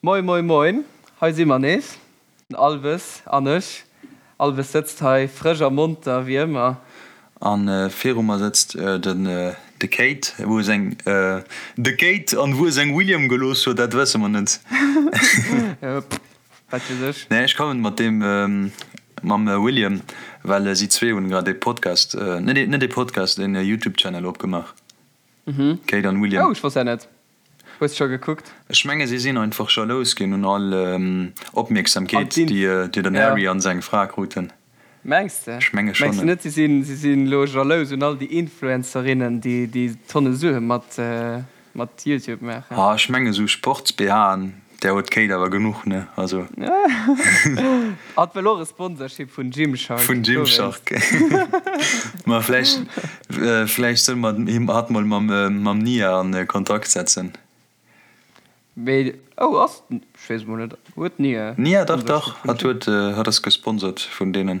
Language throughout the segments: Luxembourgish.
Moin moin moin, hei si mer nees, den Alves an ech. Alves sëtzt hei frësch a monter wéi ëmmer. A viru mer sëtzt den de Kate, wou e seng de Kate an wou e seng William gelooss huet, dat wësse mer net. Wat weess ech. Nee, ech kommen mat deem mam William, well si zwee hunn grad ee Podcast, net ee Podcast, een Youtube Channel opgemaach, Kate an William. Oh, ech wosst dat net. Hues scho gekuckt? Ech menge si sinn einfach jalous ginn un all Opmierksamkeet déi den Harry an seng Fra kruten. Mengs de? Ech menge schonn. Mengs de net si sinn si sinn elo jalous un all déi Influencerinnen déi déi Tonne Sue mat mat Youtube maachen? Ah ech menge sou Sports-BHen där huet d'Kate awer genuch ne also. Hatt wëll och e Sponsorship vun Gymshark. Vun Gymshark. Ma vläicht, vläicht solle mer him hatt mol mam, mam Nia an Kontakt setzen. Mee, oh ass, ech weess emol net, huet d'Nia Nia, dach, dach, hatt huet, hatt ass gesponsert vun deenen.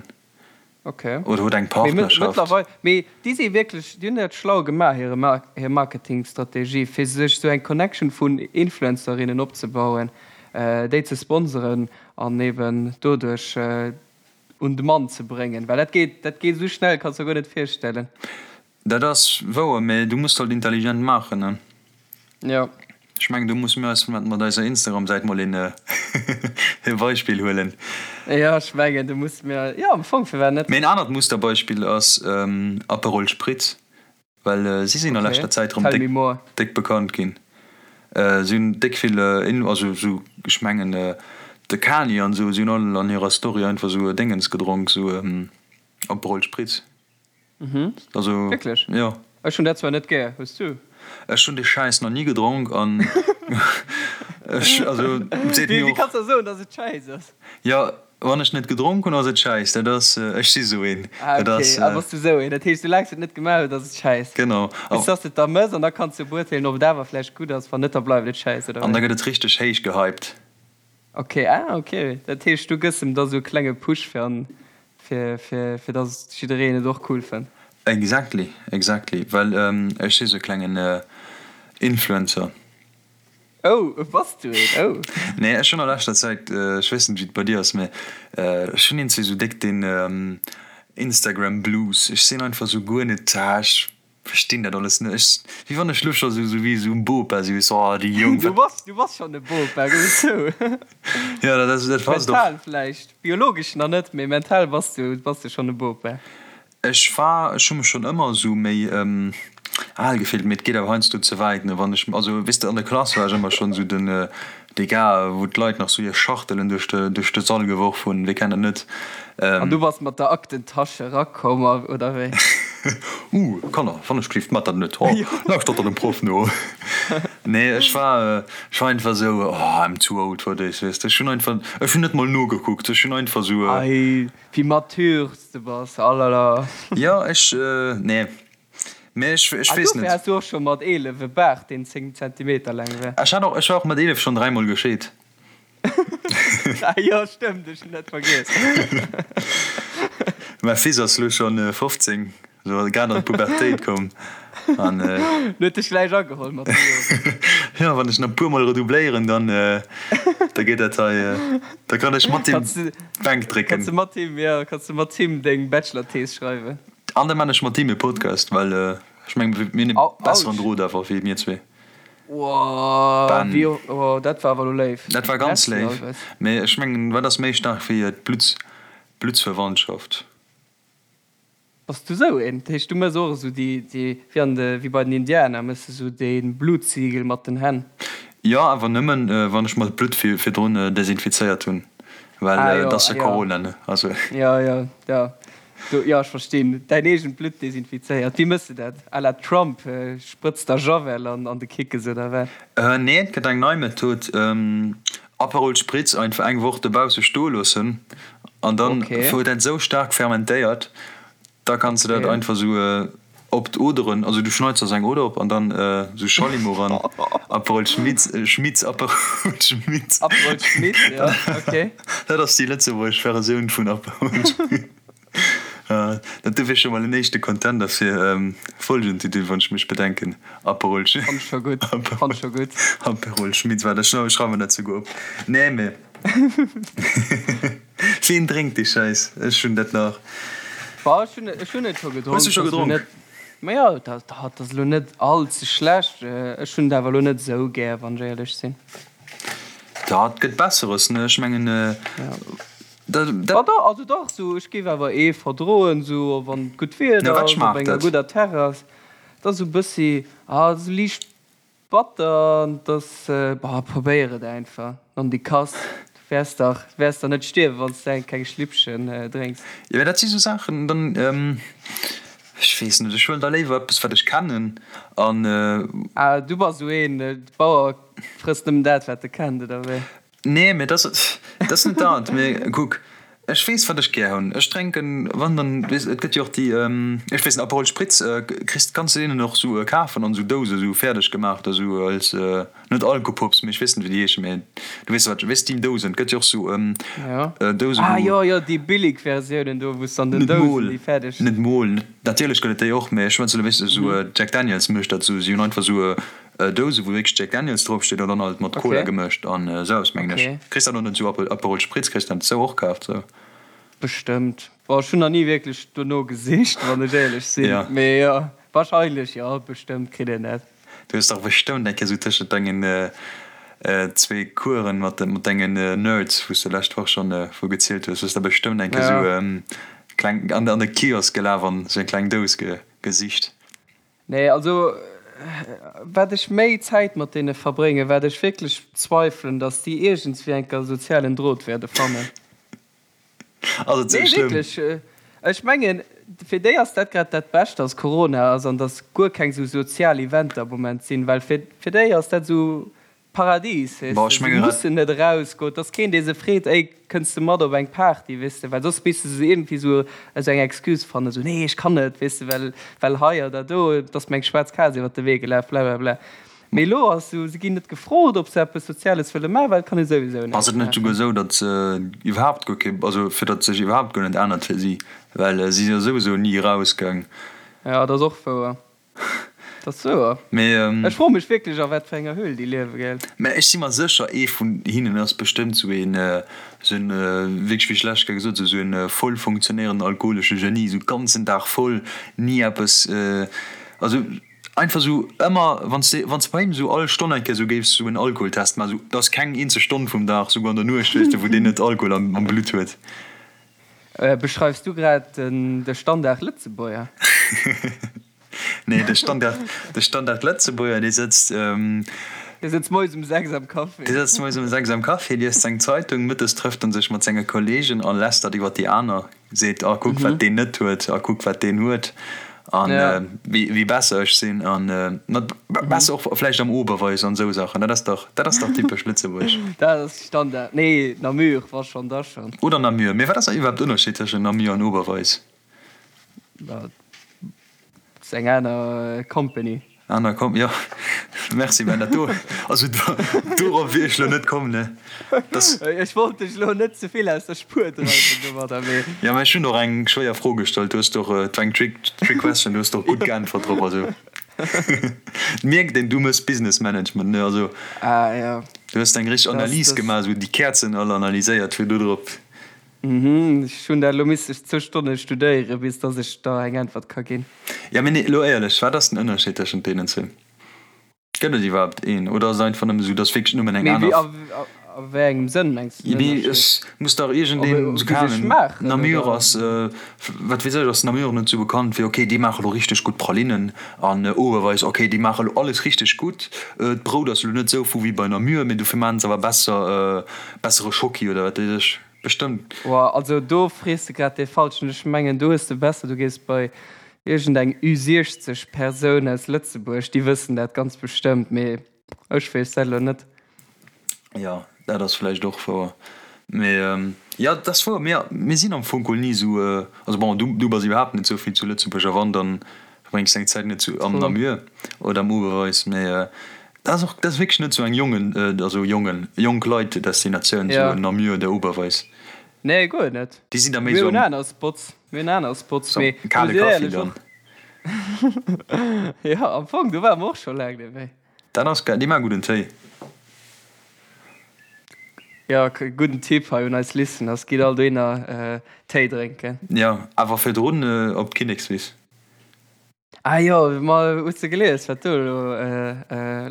Ok. Oder huet eng Partnerschaft. Mee mëttlerweil, mee déi si wierklech, déi hunn dat schlau gemaach, hire Mar, hir Marketingstrategie, fir sech esou eng Connection vun Influencerinnen opzebauen, déi ze sponseren an eben doduerch un de Mann ze bréngen. Well dat geet, dat geet esou schnell, kanns der guer net virstellen. Dat ass wouer, mee du muss halt intelligent maachen, ne? Jo. Ech mengen do musse mir eis mat eiser Instagram-Säit mol een e Beispill huelen. Jo, ech mengen do musse mir, jo am Fong, firwat net? Mee en anert Musterbeispill ass Aperol Spritz, well si sinn a leschter Zäit erëm déck déck bekannt ginn. Si hunn déck vill, also sou ech mengen de Kanye an esou, si hunn all an hirer Story einfach sou Déngens gedronk, sou Aperol Spritz. Mhm. Also, Wierklech? Jo. Ech hunn dat zwar net gär. Hues du? Ech hunn dee Schäiss nach ni gedronk an ech, also, et seet mir Wéi och. kanns du soen, dass et Schäiss ass? Jo, wann ech net gedronk hunn, ass et Schäiss. Dat ass, ech si sou een. Ah, Dat okay. ass. Ah, bass du sou een. Dat heescht, soulaang s du et net gemaach hues, ass et Schäiss. Genau. Bis dass du et da mëss an da kanns du beurteelen, ob et awer vläicht gutt ass. Wann net, da bleift et Schäiss, oder An da wéi? gëtt et richteg héich gehypt. Ok, ah ok, dat heescht du gëss em da sou e klenge Push fir an fir fir fir dass jiddereen et och cool fënnt. Exactly, exactly, well ech si sou e klengen Influencer. Oh, bass du een? Oh. Nee, ech hunn a leschter Zäit, ech weess net wéi et bei dir ass, mä ech hunn eenzel sou déck den Instagram Blues. Ech sinn einfach sou guer net, ah ech Verstinn dat alles net. Ech, wéi wann ech lo scho sou, sou wéi esou en Bopa si, weess, oh déi Jonk, Du bass, du bass schonn e Bopa, gëff et zou. Jo, dat ass, dat passt och. Mental vläicht, biologesch nach net, mee mental bass du, bass du schonn e Bopa. Ech war, ech hu mech schonn ëmmer esou méi al gefillt, mee et geet awer heiansdo ze wäit, ne, wann ech, also weess de, an der Klass war ech ëmmer schonn esou den, dee Gars, wou d'Leit nach sou hir Schachtelen duerch de, duerch de Sall geworf hunn, wie kennt dat net? An du bass mat der Aktentasche erakomm, oder wéi? Uh, Kanner, wann ech gelift, mat dat net, ho, lauschtert der dem Proff no. Nee, ech war, ech war einfach sou, oh, I'm too old for this, weess de. Ech hunn einfach, ech hunn net mol nogekuckt, ech hunn einfach sou. Ei, wéi mature s de bass, alala. Jo, ech, nee, Mee ech, ech Ah, weess dofir net. has du och scho mat 11 e Baart, deen 10 Zentimeter laang war. Ech hat och, ech war och mat 11 schonn dräimol gescheet. Ah jo, stëmmt, ech hunn dat vergiess. Mäi Fils ass lo schonn 15, sou grad an d'Pubertéit komm an. En huet dech gläich ageholl mat de Joren. Jo, wann ech nach e puer mol redoubléieren, dann, da geet dat hei, da kann ech mat him d'Bänk drécken. Kanns de mat him, jo, kanns de mat him deng Bachelor-Thees schreiwen. An da man ech mat him e Podcast, well ech mengen mir hunn e besseren Drot awer wéi mir zwee. Bam. Oh, dat war awer elo léif. Dat war ganz léif. Mee ech mengen, wat ass méi staark wéi d'Blutts, Bluttsverwandtschaft? Bass du sou een? Dat heescht, du mëss och esou déi, déi, wéi an de, wéi bei den Indianer, mëss de sou dee Bluttsiegel mat den Hänn? Jo, awer nëmmen, wann ech mer d'Blutt virdrun desinfizéiert hunn, well et ass jo Corona, ne? Also. Jo, jo, jo. Do, jo, ech verstinn. Däin eegent Blutt desinfizéiert. Wéi mëss de dat? À la Trump, sprëtz der Javel an an de Kickes oder wat? Nee, et gëtt eng nei Method, Aperol Spritz einfach eng Woch dobausse stoe loossen an dann huet dat esou staark fermentéiert, da kanns de dat einfach esou op d'Oderen, also du schneits der sou eng Oder op an dann esou Schallimo ran, Aperol Schmitz, Schmitz, Aperol Schmitz. Aperol Schmitz, jo, ok. Dat ass déi lëtzebuergesch Versioun vun Aperol Spritz. Dat do wier scho mol en éischte Contender fir Folgentitel, wann ech mech bedenken. Aperol Fann ech scho gutt, fann ech scho gutt. Aperol Schmitz, waart, ech schreiwe mer dat souguer op. Nee, mee wien drénkt dee Schäiss? Ech hunn dat nach. Bah, ech hunn, ech hunn et scho gedronk. Hues du scho gedronk? Ma jo, dat, dat ass elo net all ze schlecht. Ech hunn et awer elo net esou gär, wann ech éierlech sinn. Dat gëtt Besseres, ne? Ech mengen, dat, dat. Ah dach, also dach, sou, ech géif awer ee verdroen, sou wann et gutt Wieder ass, op enger gudder Terrass. Dat ass sou bëssi, ah, sou liicht batter an et ass, bah, probéier et einfach, nondikass, du wäers dach, du wäers dach net stierwen, wann s de eng kleng Schlippchen drénks. Jo, mä dat si sou Saachen, dann, ech weess net, ech huelen da léiwer eppes, wat ech kennen an. Ah, du bass sou een, de Bauer frësst nëmmen dat, wat e kennt, oder wéi? Nee, mee dat ass net dat. Mee kuck, ech weess, wat ech gär hunn. Ech drénken, wann dann, weess, et gëtt jo och déi, ech weess net, Aperol Spritz kriss, kanns de deenen och sou kafen an sou Douse sou fäerdeg gemaach da sou als, net Alkopops, mee ech weess net, wéi déi heeschen, mee du weess wat, weess déi Dousen, et gëtt jo och sou Dousen, Ah jo, jo, déi billig Versiounen do, wou s de an den Dousen déi fäerdeg. Net mol, net, natierlech gëtt et déi och, mee ech schwätzen elo, weess de, sou Jack Daniels mécht dat sou, si hunn einfach sou Douse wou wierklech Jack Daniels drop steet an dann halt mat Cola gemëscht an esou eppes mengen ech. Kriss dat och net esou Aperol Spritz kriss dat esou och kaaft sou? Bestëmmt. Bon ech hunn nach ni wierklech dono gesicht wann ech éierlech sinn, mee jo wahrscheinlech jo bestëmmt kritt een dat. Du hues dach bestëmmt eng Kéier esou tëschent dengen zwee Coursen mat dengen Nerds wou s de lescht Woch schonn vu gezielt hues, hues der bestëmmt eng Kéier esou kleng an de Kiosk gelaf an esou eng kleng Dous gesicht. Nee, also wat ech méi Zäit mat deene verbréngen, wat ech wierklech zweifelen, datt déi iergendswéi enker sozialen Drot wäerde fannen. Ass et sou Nee, schlëmm? wierklech. Ech mengen, fir déi ass dat grad dat Bescht, datt Corona ass an datt guer keng sou sozial Eventer am Moment sinn, well fir déi ass dat esou Paradies, weess Boah, de, ech se menge grad. mussen net erausgoen, et ass keen, dee se freet, ey, kënns de mat op eng Party, weess de, well soss misste se iergendwéi esou esou eng Excuse fannen, esou, nee, ech kann net, weess de, well, well hei oder do, et ass mir eng schwaarz Kaz iwwert de Wee gelaf, blablabla. Mee elo ass esou, se ginn net gefrot, ob se eppes Soziales wëlle maachen, well et kann ee souwisou Ass näischt et net souguer maachen. esou, datt se iwwerhaapt guer kee, also fir datt sech iwwerhaapt guer net ännert fir si, well si si jo souwisou ni erausgaang. Jo, dat ass och wouer. Dat ass wouer. Mee. Ech froe mech wierklech a wat fir enger Höhl déi liewe, gell? Mä ech si mer sécher, ee vun hinnen ass bestëmmt sou een, sou en, wierklech wéi ech d'lescht Kéier gesot hunn, sou en voll funktionéierenden alkoholesche Genie, sou ganzen Dag voll, ni eppes, also einfach sou ëmmer, wann s de, wann s de bei him sou all Stonn eng Kéier sou géifs sou en Alkoholtest maachen, sou, et ass keng eenzeg Stonn vum Dag, souguer an der Nuecht, weess de, wou deen net Alkohol am, am Blutt huet. Beschreifs du grad de Standard-Lëtzebuerger? Nee, de Standard, de Standard-Lëtzebuerger, dee sëtzt. Dee sëtzt moies um 6 am Café. Dee sëtzt moies um 6 am Café, liest seng Zeitung, mëttes trëfft en sech mat senge Kollegen a lästert iwwer déi aner, seet, ah kuck wat deen net huet, a kuck wat deen huet an wéi besser ech sinn an mat besser och vläicht am Oberweis an esou Saachen. Dat ass dach, dat ass dach typesch Lëtzebuerg. Dat ass Standard. Nee, Namur, wa schonn, da schonn. Oder Namur. Mee wat ass iwwerhaapt Ënnerscheed tëschent Namur an Oberweis? Dat ass eng aner Company. Aner Com, jo. Merci, Ben, dat do, also dorop wier ech lo net komm, ne. Dass. Ech wollt dech lo net ze vill aus der Spuer dreiwen domadder, mee. Jo, mä ech hunn och eng schwéier Fro gestallt. Du hues doch, et war eng Trick, Trick Question, du hues doch gutt geäntwert drop, also. Et mierkt een, du mëss Business Management, ne, also. Ah, jo. Du hues eng richteg Analys gemaach, esou déi Käerzen all analyséiert, fir do drop. Mhm, ech hunn dat elo misste zwou Stonne studéieren, bis dass ech der eng Äntwert ka ginn. Jo, mee nee, elo éierlech, wat ass den Ënnerscheed tëschent deenen zwee? Gëtt et iwwerhaapt een oder ass et einfach nëmme sou, dass wierklech nëmmen eng Mee wéi, aner. a a wéi engem Sënn mengs de den Mee Ënnerscheed? ech muss dach iergendeen, Ob sou wéi keen se Ahnung, schmaachen Namur oder? ass, wat weess ech, ass Namur net sou bekannt fir, ok, déi maache lo richteg gutt Pralinnen an Oberweis, ok, déi maache lo alles richteg gutt, d'Brout ass lo net sou vu wéi bei Namur, mee dofir maachen se awer besser, bessere Schocki oder wat weess ech. Bestëmmt. Woah, also do frees de grad dee Falschen. Ech mengen do hues de besser du gees bei iergend eng Ü60 Persoun aus Lëtzebuerg, déi wëssen dat ganz bestëmmt, mee ech weess dat elo net. Jo, dat ass vläicht och wouer. Mee jo, dat ass wouer. Mir, mir sinn am Fong geholl ni esou, also bon, du, du bass iwwerhaapt net esou vill zu Lëtzebuerg a wann, dann verbréngs deng Zäit net zu am Namur oder am Oberweis, mee Dat ass och, dat ass wierklech net sou eng Jongen, also Jongen, jonk Leit Destinatioun, sou Namur oder Oberweis. Nee, guer net. Déi sinn da méi Mir sou hunn am. aner Spots. Mir hunn aner Spots, So mee kale muss ech Kaffi éierlech dann. och. Jo, am Fong, do ware mer och scho laang net méi. Dat ass geil, déi maache gudden Téi. Jo, gudden Tipp hei un eis Listeners, gitt all dohinner Téi drénken. Jo, awer virdrun op d'Kinnekswiss. Ah jo, ma hues de gelies wat do elo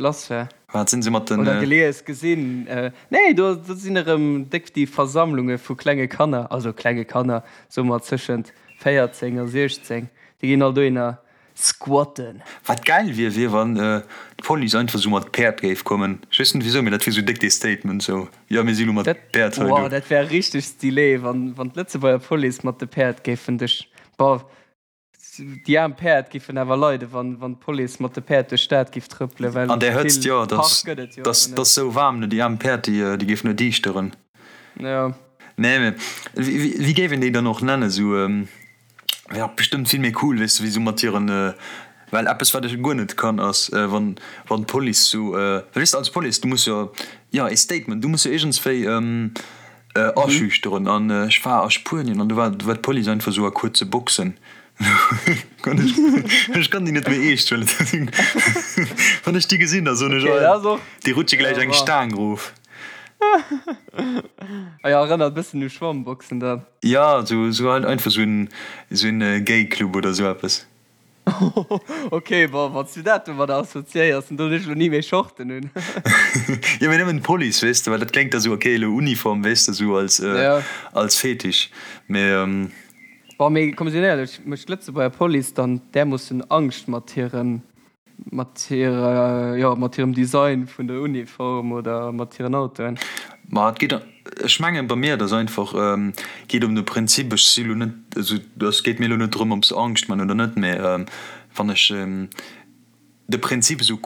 lass war? Wat sinn se mat den. Oder gelies, gesinn? Nee, do sinn erëm déck déi Versammlunge vu klenge Kanner, also klenge Kanner, soe mer tëschent 14 a 16, déi ginn all dohinner squatten. Wat gäil wier, wier wann d'Police einfach sou mat Päerd géif kommen. Ech weess net wisou, mee dat wier sou déck dee Statement sou, jo mir si lo mat Päerd hei do. Wow, dat wär richteg stylé, wann d'Lëtzebuerger Police mat de Päerd géifen duerch, boah, Déi aarm Päerd giffen awer leiden, wann d'Police mat de Päerd duerch d'Stad giff trëppelen, well An där Hëtzt, vill jo, et Park ass, gëtt et jo et ass, awer et net. ass sou waarm, ne, déi aarm Päerd, déi, déi géifen nur diischteren. Jo. Nee, mee wéi, wéi géif een déi dann och nennen? Sou, wär och bestëmmt vill méi cool, weess de, wéi sou mat hiren, well eppes, wat ech guer net kann, ass, wann, wann d'Police sou, well weess de, als Police, du muss jo, jo, ee Statement, du muss jo iergendswéi, Aschüchteren an ech war a Spuenien an do war war d'Police einfach sou a kuerze Boxen. Ech kann déi net méi eescht huelen. Wann ech déi gesinn, da soen ech, oh, déi rutsche gläich eng Staang erof. Ah jo, erënnert e bëssen u Schwammboxen dann. Jo, sou sou halt einfach sou en sou en Gay-Club oder sou eppes. Ok, bon, wann s du dat domadder assoziéiers, dann doen ech elo ni méi Shorten un. Jo, mee nëmmen d'Police, weess de, well dat kléngt da sou, ok, elo Uniform, weess de, sou als, als Fetisch, mee. Bon, mee komm, sinn éierlech, mécht d'Lëtzebuerger Police dann därmoossen Angscht mat hirem Mat hirer, jo, mat hirem Design vun der Uniform oder mat hiren Autoen. Ma et geet, ech mengen bei mir, et ass einfach, geet ëm de Prinzip, ech si lo net, also et geet mir elo net drëm, ob se Angscht man oder net, mä wann ech de Prinzip esou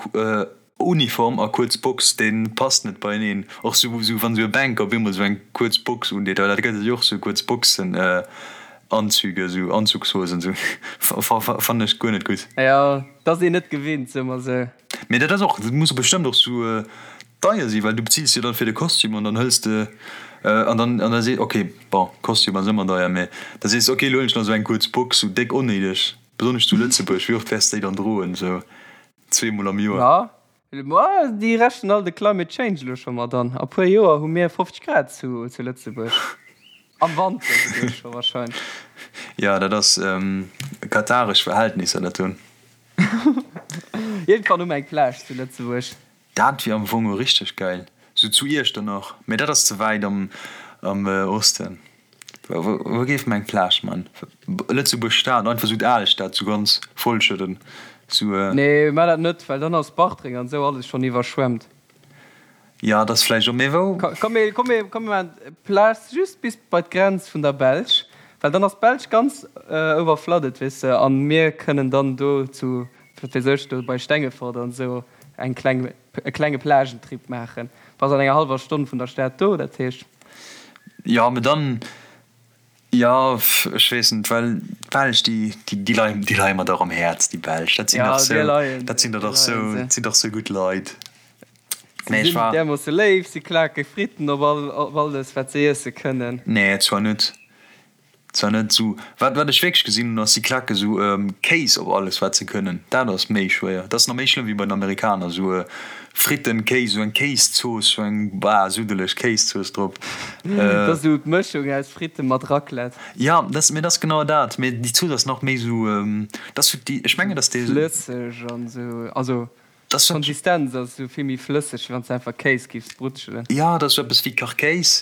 Uniform a kuerz Box, dee passt net beieneen. Och sou wann esou e Banker op eemol esou eng kuerz Box undeet, well dat gëtt et jo och, sou kuerz Boxen. Anzüge, sou Anzugshosen, sou fannen ech guer net gutt. Jo, dat ass een net gewinnt, soe mer sou. Mee dat ass och, dat muss bestëmmt och sou deier sinn, well du bezills jo dann fir de Kostüm an dann hëls de an dann an da sees, ok, bon, Kostüm ass ëmmer deier, mee da sees de, ok, elo huelen ech nach sou eng kuerz Box, sou déck onnéideg, besonnesch zu Lëtzebuerg, wéi oft wäers de déi dann droen, sou zweemol am Joer? Jo, Ma déi rechnen all de Climate Change elo scho mat an. A puer Joer hu mir 50 Grad zu Lëtzebuerg. Am Wanter souguer scho warscheinlech. Jo, dat ass kataresch Verhältnisser dat do. Iergendwann hu mer eng Plage zu Lëtzebuerg. Dat wier am Fong och richteg gäil. Sou zu Iechternach, mee dat ass ze wäit am Osten. Wou géif mer eng Plage man? Lëtzebuerg Stad, einfach sou d'Alstad sou ganz vollschëdden sou. Nee, mar dat net, well dann ass Bartreng an sou alles schon iwwerschwemmt. Jo, dat ass vläicht och, mee wou? Komm mir, komm mir, komm mir maachen d'Plage just bis bei d'Grenz vun der Belsch, well dann ass d'Belsch ganz overflooded, weess de, an mir kënnen dann do zu, wat weess ech, do bei Stengefort an sou eng kleng, e klenge Plagentrip maachen. Bass an enger hallwer Stonn vun der Stad do, dat heescht. Jo, mee dann, jo, ech weess net, well d'Belsch, déi, déi leien, déi leie mer dach am Häerz, déi Belsch, dat sinn dach sou, dat sinn der dach sou, dat sinn dach sou gutt Leit. Si sinn därmoosse léif, si klake Fritten op all, op alles, wat se iesse kënnen. Nee, zwar net. Zwar net esou, wat wat ech wierklech gesinn hunn ass, si klacken esou Kéis op alles wat se kënnen. Dat ass méi schwéier, dat ass nach méi schlëmm wéi bei den Amerikaner, esou Fritten, Kéis, esou eng Kéiszooss, esou eng bah suddeleg Kéiszooss drop. Dat ass esou d'Mëschung aus Fritten mat Raclette. Ja, dat ass, mee dat ass genau dat, mee déi Zooss ass nach méi esou, dat ass esou déi, ech mengen dass déi. Flësseg an esou, also D'Konsistenz ass esou vill méi flësseg, wéi wann s de einfach Kéis giffs brutschelen. Jo, dat ass esou eppes wéi Kachkéis,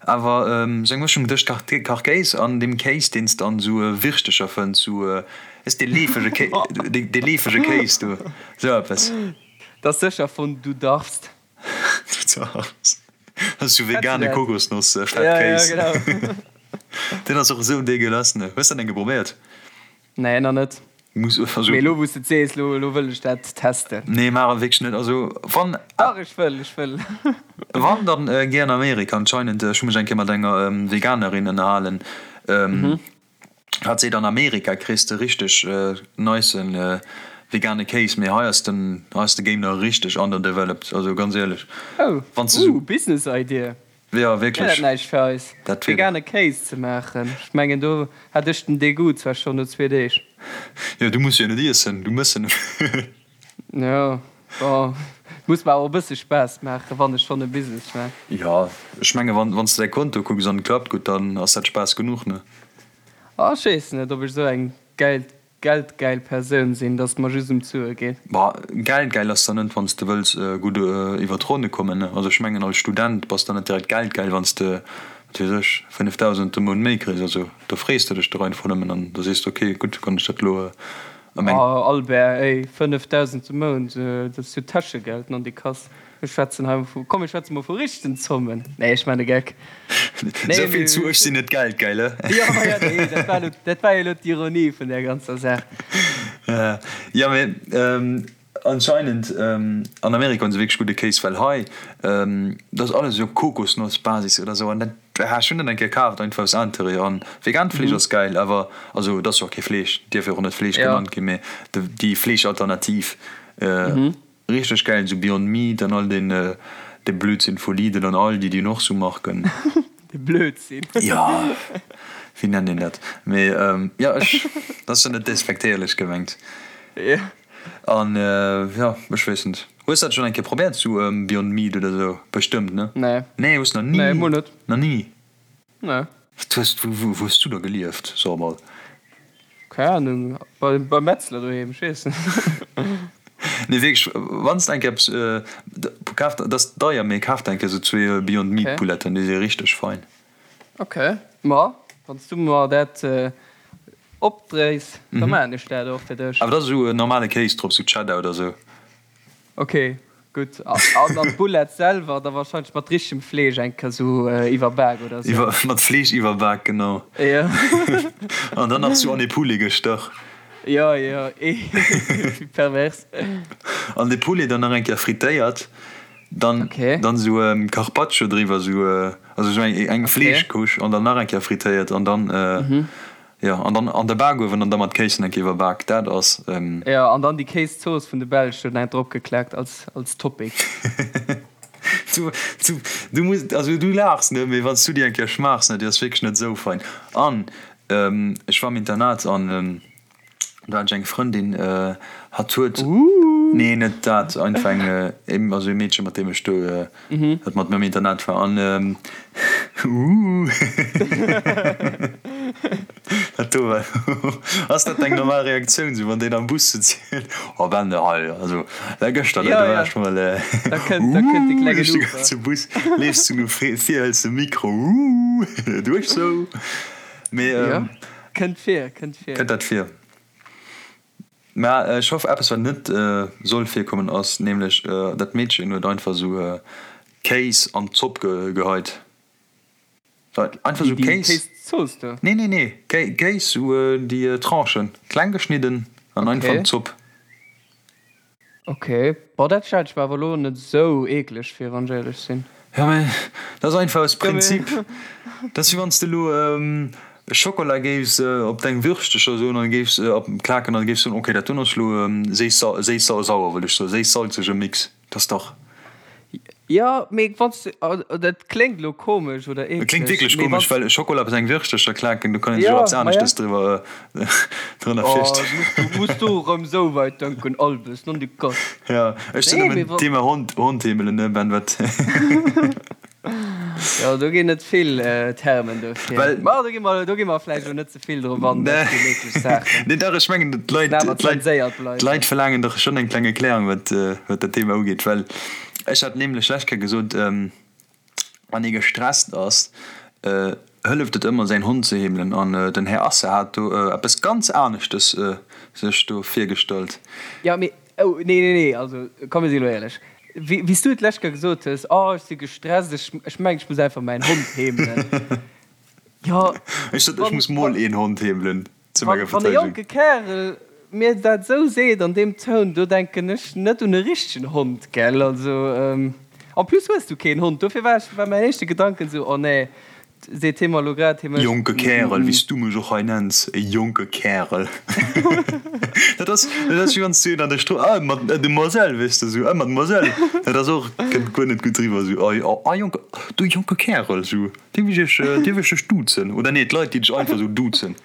awer esou eng Mëschung tëscht Kachkéis an deem Kéis, deen s de an esou Wirschtecher fënns, esou, weess dee leefege Kéis, dee leefege Kéis do, esou eppes. Dat ass sécher vun Du darfst. Du darfst. Dat ass esou vegane Kokosnoss-Fettkéis. Ja, ja, genau. Deen ass och esou degueulasse, ne? Hues de deen geprobéiert? Nee, nach net. Muss, also. Mee elo wou s de et sees, elo, elo wëll ech dat testen. Nee, maach et wierklech net. Also wann. Dach, ech wëll, ech wëll. Wann, dann géi an Amerika. Anscheinend, ech hu mech eng Kéier mat enger Veganerin ënnerhalen, hat seet, an Amerika kriss de richteg nicen vegane Kéis, mee hei ass den, hei ass de Game nach richteg underdeveloped. Also ganz éierlech, Oh, wann s de sou. Ooh, Business idea. Jo, wierklech. Wär dat näischt fir eis, Dat wier. vegane Kéis ze maachen? Ech mengen, do hätt ech den Degoût zwar schonn no zwee Deeg. Jo, du muss jo net iessen, du mëss en. Jo, bon, muss mer awer e bësse Spaass maachen, wann ech schonn e Business maan. Jo, ech menge wann s de däi Konto kucks an et klappt gutt, dann ass dat Spaass genuch, ne? Ah, ech weess net, ob ech esou eng gäil geldgäil Persoun sinn, dass et mer just ëm d'Sue geet. Bah, geldgäil ass der net, wann s de wëlls gutt iwwer d'Ronne kommen, ne? Also ech mengen als Student bass der net direkt geldgäil, wann s de, wat weess ech, 5.000 de Mount méi kriss. Also do frees de dech dach einfach nëmmen an da sees de, ok, gutt, kann ech dat elo a meng. Oh Albert, ey, 5.000 de Mount, dat ass jo Täschegeld, nondikass. Mir schwätzen hei vu, komm mir schwätze mol vu richtegen Zommen. Nee, ech man e Geck. Nee, Esou vill zu ech sinn net geldgeil, he? Jo, ma ja, nee, dat war elo, dat war jo elo d'Ironie vun där ganzer Saach. Jo, mee anscheinend an Amerika hunn se wierklech gudde Kéis, well hei, dat ass alles esou op Kokosnossbasis oder esou an dat, ech hunn dat eng Kéier kaaft, einfach aus Interêt an vegaant Fleesch ass gäil, awer also et ass jo och kee Fleesch, dierf jo och net Fleesch genannt ginn, mee déi Fleeschalternativ. Richteg gäil, esou Beyond Meat an all deen de Blödsinn vu Lidl an Aldi, déi hunn och sou Marken. De Blödsinn. Jo, wéi nennt een dat? Mee jo, ech, dat ass jo net despektéierlech gemengt. Jo. An jo, ech weess net. Hues dat schonn eng Kéier probéiert, sou Beyond Meat oder sou? Bestëmmt, ne? Nee. Nee, hues nach ni? Nee, mol net. Nach ni? Nee. Wat hues, wou hues du da gelieft, so emol? Keng Ahnung, beim Metzler doheem, ech weess net. Nee wierklech, wann s de eng Kéier eppes kaf, dat ass deier, mee kaf der eng Kéier sou zwee Beyond Meat Pouletten, déi si richteg fein. Ok, ma wann s du mer dat opdréis, da maachen ech dat och fir dech. Awer da sou normale Kéis drop, sou Cheddar oder sou. Ok, gutt. An an d'Boulette selwer da wahrscheinlech mat richtegem Fleesch eng Kéier sou iwwerbak oder sou. Iwwer, mat Fleesch iwwerbak, genau. Jo. An dann nach sou an ee Poulet gestach. Jo, jo, wéi pervers. An de Poulet dann nach eng Kéier frittéiert, dann, dann sou Carpaccio driwwer, sou, also sou eng, eng Fleeschcouche an dann nach eng Kéier frittéiert an dann. Jo, an dann an de Bakuewen an da mat Kéis eng Kéier iwwerbak, dat ass. Jo, an dann déi Kéiszooss vun de Belsch do nach drop geklackt als als Topping. Du, du, du muss, also du laachs, ne, mee wann s du déi eng Kéier schmaachs, ne, déi ass wierklech net esou fein. An ech war am Internat an do hat ech eng Frëndin, hatt huet, nee net dat, einfach eng, also e Meedche mat deem ech do, dat mat mir am Internat war an Uuh dat do war ass dat eng normal Reaktioun sou wann deen am Bus sëtzt oh Ben hei also da gëschter do war ech mol uuh duerch de ganze Bus leefs du no vir hëls de Mikro uuh duerch sou mee kënnt vir kënnt vir kënnt dat vir. Mä ech hoff eppes wat net soll virkommen ass nämlech dat Meedchen huet einfach sou Kéis an d'Zopp geheit. Einfach sou Kéis. Kéiszooss do? Nee nee nee Kéis sou déi Tranchen kleng geschnidden an einfach an d'Zopp. Ok, bon dat stellt ech mer awer elo net sou eekleg vir wann ech éierlech sinn. Jo mä dat ass einfach aus Prinzip. Dat ass wéi wann s de elo Schokola géifs op deng Würschtecher soen an géifs klaken an géifs soen, ok dat doen ass elo séiss-sauer wëll ech soen, séiss-salzege Mix. Dat ass dach. Jo, mee wann s de, dat kléngt elo komesch oder eekleg. Et kléngt wierklech komesch, well Schokola op seng Würschtecher klaken, do kann een sech och eppes aneschtes driwwer drënner virstellen. Oh, muss du erëm esou weit denken, Albes, non de Gott. Jo, ech sinn nëmmen Thema Hond, Hond heemelen, ne Ben, wat? Jo, do ginn et vill Termen dofir. Well. Ma do gi mer, do gi mer vläicht elo net ze vill drop an, dat sinn eeklech Saachen. Nee, dach, ech mengen, d'Leit, d'Leit, d'Leit verlaangen dach schonn eng kleng Erklärung, wat, wat dat Thema ugeet. Well ech hat nämlech lech Kéier gesot, wann ee gestresst ass, hëlleft et ëmmer, säin Hond ze heemelen. An den Här Asse hat do eppes ganz aneschtes sech do virgestallt. Jo, mee Oh, nee, nee, nee, also komm, mir si elo éierlech. Wéi s du et d'lescht Kéier gesot hues, Oh, ech si gestresst, ech, ech mengen, ech muss einfach mäin Hond heemelen. Jo, Ech sot, ech muss mol een Hond heemelen, zu menger wann e Verteidegung. jonke Kärel mir dat esou seet an deem Toun, do denken ech net un e richtegen Hond, gell? Also, en plus hues du keen Hond, dofir war ech, war mäin éischte Gedanken esou, Oh nee. Seet hie mer elo grad, hie mécht. Jonke Kärel, wéi s du mech och hei nenns, e jonke Kärel. Dat ass, dat ass wéi wann s du een an der Strooss, ah, Mademoiselle, weess de, esou, ah, Mademoiselle. Dat ass och, kënnt guer net gutt eriwwer, esou, ah, ah, jonke, du jonke Kärel, esou, dierf ech iech, dierf ech dech duzen? Oder nee, d'Leit, déi dech einfach esou duzen.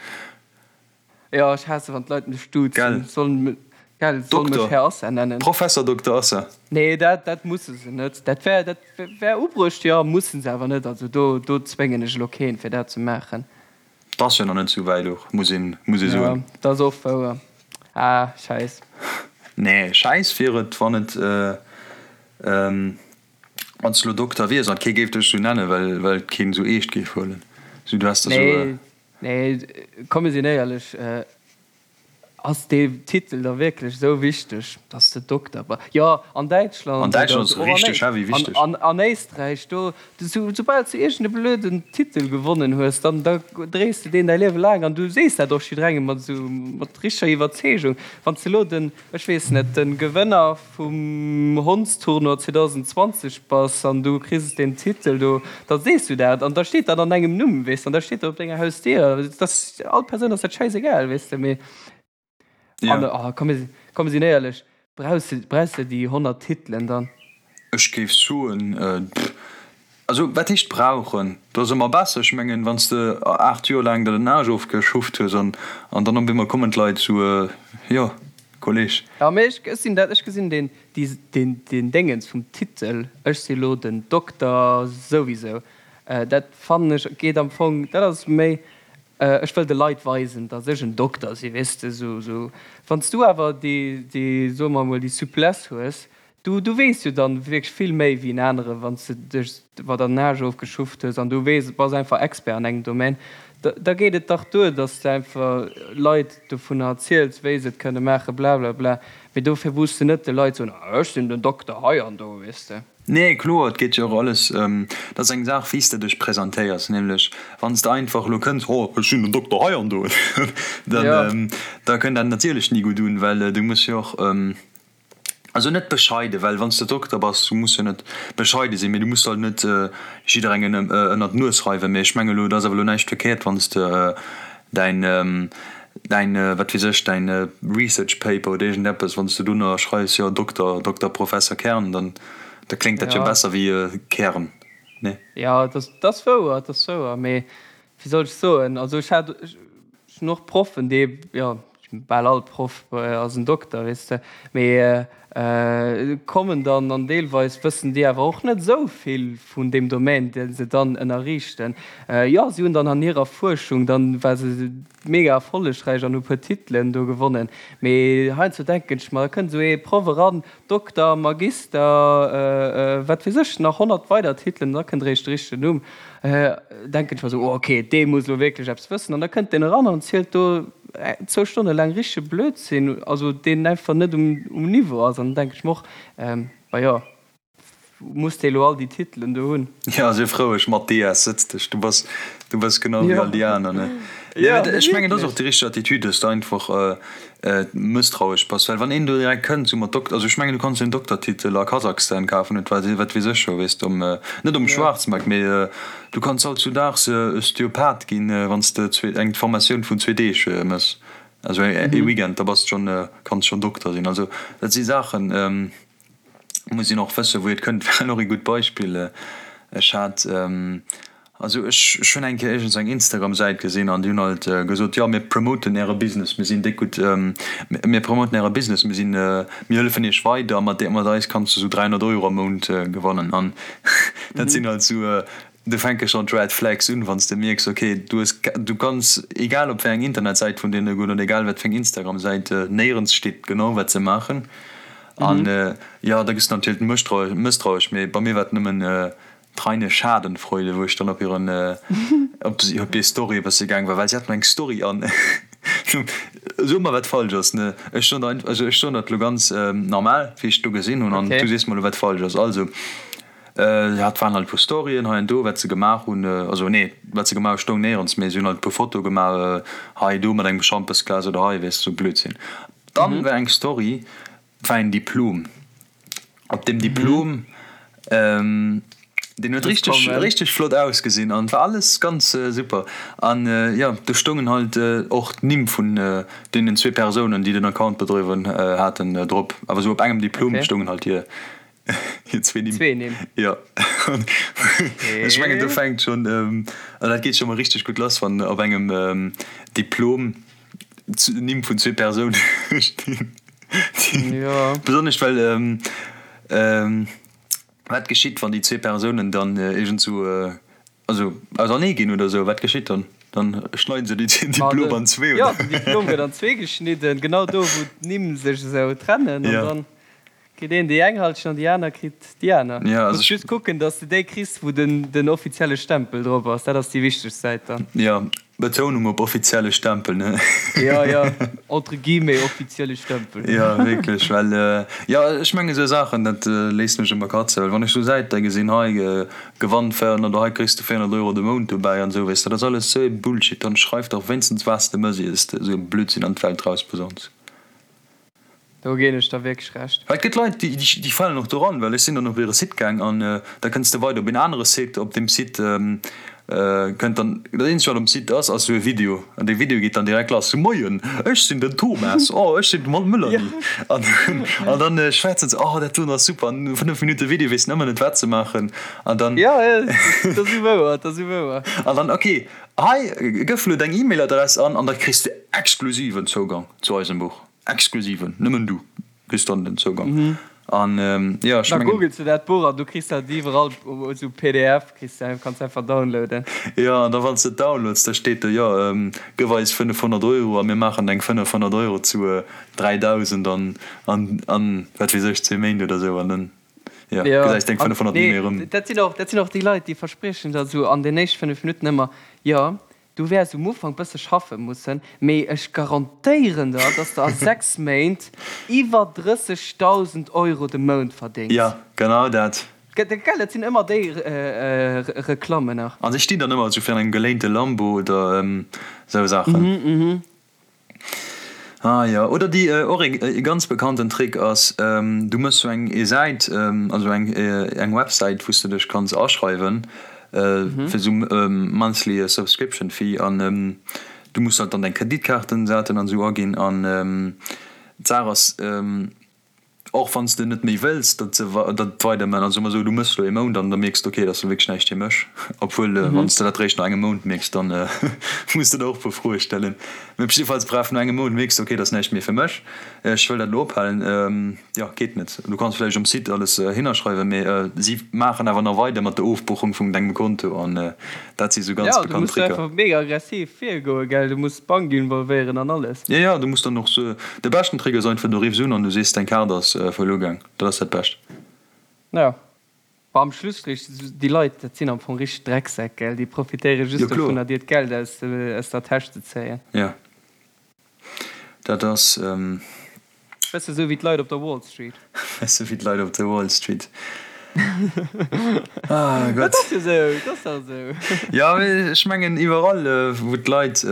Jo, ech haasse wann d'Leit mech duzen. Gell. Sollen, gell, sollen mech Dokter, Här Assa nennen. Professor Dokter Assa. Nee, dat, dat musse se net. Dat wär, dat wär ubruecht, jo, mussen se awer net. Also do, do zwéngen ech elo keen, fir dat ze maachen. 't ass jo nach net sou wäit och, muss een, muss ee Jo, soen. dat ass och wouer. Ah, Schäiss. Nee, Schäiss wier et, wann et, wann s de elo Dokter wiers an kee géif dech sou nennen, well, well et keen sou eescht géif huelen. Sou, du häss da sou. Nee, Nee, komm mir sinn éierlech, ass dee Titel da wierklech esou wichteg, dass de Dokter bass? Jo, an Däitschland An oder Däitschland ass och an richteg heavy wichteg. an an Éisträich, do soubal s du iergend e blöden Titel gewonnen hues, dann da dréis de deen däi Liewe laang an du sees dat och jidderengem mat esou mat richteger Iwwerzeegung. Wann s de elo den, ech weess net, de Gewënner vum Hondstournoi 2020 bass an du kriss deen Titel do, da sees du dat an da steet dat an dengem Numm, weess de, an da steet dat op denger Hausdier. Dat ass all Persoun ass dat schäisegal, weess de, mee an oh komm mir komm mir sinn éierlech, brauchs de brauchs de déi 100 Titelen dann? Ech géif soen, pff, also wat heescht brauchen? Dat ass ëmmer besser. Ech mengen, wann s de 8 Joer laang der den Aarsch ofgeschufft hues an an dann op eemol kommen d'Leit sou, jo, Kolleg. Jo, mee ech sinn dat, ech gesinn deen deen deen Déngens vum Titel, ech si lo den Dokter souwisou, dat fannen ech geet am Fong, dat ass méi, ech wëll de Leit weisen, datt ech en Dokter si, weess de, sou sou. Wann s du awer déi déi, soe mer emol, déi Souplesse hues, Du, du weess jo dann wierklech vill méi wéi en anere wann s de dech iwwer der Nage ofgeschufft hues an du weess, bass einfach Expert an engem Domaine. Da, da geet et dach duer, dass s de einfach Leit dovunner erziels, wéi se et kënne maachen, blablabla. Mee dofir muss de net de Leit soen, ah ech sinn den Dokter hei an do, weess de. Nee, kloer, et geet jo och alles, dat ass eng Saach wéi s de dech presentéiers, nämlech wann s de einfach elo kënns, oh ech sinn den Dokter hei an do, dann, da kënnt dat natierlech ni gutt un, well du muss jo och, Also net bescheiden, well wann s de Dokter bass, du muss jo net bescheide sinn, mee du muss halt net jidderengem ënnert d'Nues reiwen. Mee ech menge lo, et ass awer lo näischt verkéiert, wann s de däin, däin, wat weess ech, däin Research Paper oder iergendeppes, wann s de dunner schreifs, jo Dokter, Dokter Professor Kern, dann da kléngt dat jo besser wéi Kern, nee? Jo, dat ass wouer, dat ass wouer, mee wéi soll ech soen, also ech hat, ech hunn och Proffen, déi, jo, bal all Proff ass en Dokter, weess de, mee kommen dann an deelweis wëssen déi awer och net esou vill vun deem Domaine, dee se dann ënnerriichten. Jo, si hunn dann an hirer Fuerschung, dann war se mega erfollegräich an hu puer Titelen do gewonnen, mee heiansdo denken ech mer, da kënnt esou ee Proff eran, Dokter, Magister, wat weess ech, nach 100 weider Titelen, da kënnt eréischt de richtegen Numm. Denken ech mer esou, oh ok, dee muss elo wierklech eppes wëssen. An da kënnt deen eran an zielt do zwou Stonne laang richtege Blödsinn, also deen einfach net um Niveau ass. An dann denken ech mer och, bah jo, muss dee elo all déi Titelen do hunn? Jo, sief roueg, Mathias, sëtz dech, du bass, du bass genau wéi all déi aner, ne? Nee, mä ech mengen, dat ass och déi richteg Attitude, dass de einfach mësstrauesch bass, well wann een do direkt kënnt sou mat Dok-, also ech mengen, du kanns jo en Doktertitel a Kasachstan kafen, et wat, wat weess ech scho, weess de, um, net um Schwaarzmarkt, mee du kanns hautzudaags Osteopath ginn, wann s de zwee, eng Formatioun vun zwee Deeg mëss, also ee Weekend, da bass de schonn, kanns schonn Dokter sinn. Also dat si Saachen, muss een och wëssen, wou et kënnt. Well och ee gutt Beispill, ech hat, also ech ech hunn eng Kéier iergends eng Instagram-Säit gesinn an déi hunn halt gesot, jo mir promoten äre Business, mir sinn déck gutt, mir promoten äre Business, mir sinn, mir hëllefen iech weider, mat mat eis kanns du sou 300 Euro am Mount gewannen. An dat sinn halt sou, do fänke schonn d'Red Flags un, wann s de mierks, ok, du hues, du kanns egal op wéi eng Internetsäit vun deene goen oder egal wat fir eng Instagram-Säit, néierens steet genau wat se maachen. An jo, da gëss de natierlech mësstrauesch, mee bei mir war et nëmmen d'reine Schadenfreude, wou ech dann op hiren, op hir Story e bësse gaang war, well si haten eng Story an so mer wat falsch ass, ne? Ech soen der, also ech soen dat elo ganz normal, wéi ech et do gesinn hunn, an du sees mer elo wat falsch ass. Also, hat waren halt e puer Storyen hei an do, wat se gemaach hunn, also nee, wat se gemaach hu stoung néierens, mee si hunn halt e puer Fotoe gemaach hei do mat engem Schampesglas oder hei, weess de, sou Blödsinn. Dann war eng Story, war een Diplom. Op deem Diplom. Deen huet richteg richteg flott ausgesinn an war alles ganz super an jo do stoungen halt och d'Nimm vun deenen zwee Persounen déi den Account bedriwwen haten drop, awer esou op engem Diplom stoungen halt hir hir zwee Nimm. Zwee Nimm. Jo ech mengen do fänkt schonn an dat geet scho mol richteg gutt lass wann op engem Diplom d'Nimm vun zwee Persoune stinn. Jo. Besonnesch well Wat geschitt, wann déi zwee Persounen dann iergendsou, also ausernee ginn oder sou? Wat geschitt dann? Dann schneiden se den Diplom an zwee, oder? Jo, den Diplom gëtt an zwee geschnidden, genau do, wou d'Nimm sech esou trennen. An dann kritt een déi eng Halschent an déi aner kritt déi aner. Muss just kucken, dass de déi kriss, wou den offizielle Stempel drop ass. Dat ass déi wichtegst Säit dann. Jo, Betounung op offizielle Stempel, ne? Jo, jo, entre guillemets offizielle Stempel. Jo, wierklech, well, jo, ech mengen esou Saachen, dat léisst mech ëmmer katzen, well wann ech esou Säite gesinn, hei gewann 400 oder hei kriss de 400 Euro de Mount dobäi an esou, weess de, dat ass alles esou ee Bullshit. Dann schreif dach wéinstens wat s de mëss, ier s de esou e Blödsinn an d'Welt rausposauns. Do ginn ech der wierklech Recht. Well et gëtt Leit, déi falen och doran, well ech sinn dann op hire Site gaang an da kënns de weider op een anere Site. Op deem Site kënnt dann, dat eenzegt wat um Site ass, ass esou e Video an dee Video geet dann direkt lass, Moien, ech sinn den Thomas, oh ech sinn d'Melanie an an dann schwätzen se, oh dat doen ass super an no 5 Minutte Video weess en ëmmer net wat se maachen an dann. Jo, jo, dat ass esou wouer, dat ass esou wouer. An dann, ok, hei gëff elo deng E-Mail-Adress an an da kriss de exklusiven Zougang zu eisem Buch. Exklusiven, nëmmen du kriss dann den Zougang. An jo, ech Da mengen. googels de dat Buch an du kriss dat iwwerall esou pdf, kriss de, kanns de einfach downloaden. Jo, an da wann s de et downloads, da steet do, jo, gëff eis 500 Euro a mir maachen deng 500 Euro zu 3.000 an, an, an wat weess ech, zwee Méint oder esou an dann, jo, Jo, gesäis deng an 500 ni nee, méi erëm. dat sinn och, dat sinn och déi Leit, déi verspriechen der esou an den éischt 5 Minutten ëmmer, jo, Du wäers um Ufank bësse schaffe mussen, mee ech garantéieren der, dass de a 6 Méint iwwer 30.000 Euro de Mount verdéngs. Jo, genau dat. Gell, dat sinn ëmmer déi Reklammen nach. A se stinn dann ëmmer esou virun engem geléinte Lambo oder esou Saachen. Ah jo, oder déi och e ganz bekannten Trick ass, du mëss sou eng e Säit, also eng eng Websäit wou s de dech kanns aschreiwen fir sou monthly subscription fee an du muss halt dann deng Kreditkaartendaten an sou aginn an d'Saach ass, Och wann s de net méi wëlls, datt se dat weiderman, also soe mer esou, du mëss elo ee Mount an da mierks de, ok, dat ass elo wierklech näischt fir mech, obwuel wann s de dat réischt no engem Mount mierks, dann muss de der och e puer Froe stellen. Mee op jiddefalls, bref, no engem Mount mierks de, ok, dat ass näischt méi fir mech, ech wëll dat elo ophalen, jo, geet net. Du kanns vläicht um Site alles hinnerschreiwen, mee si maachen awer nach weider mat der Ofbuchung vun dengem Konto an dat si sou ganz Jo, du bekannt muss Tricker. einfach mega aggressiv virgoen, gell, du muss d'Bank involvéieren an alles. Jo, jo, du muss dann och sou, de beschten Trick ass einfach, du riffs un an du sees, deng Kaart ass verluer gaang, dat ass dat Bescht. Jo, ma am Schlusstrich, déi Leit, dat sinn am Fong richteg Drecksäck, gell, déi profitéiere Jo, just kloer. dovunner, dir d'Geld aus aus der Täsch ze zéien. Jo, dat ass. Bësse sou wéi d'Leit op der Wall Street. Bësse wéi d'Leit op der Wall Street. Ah Dat Gott. ass jo sou, dat ass dach sou. Jo, mee ech mengen iwwerall, wou d'Leit,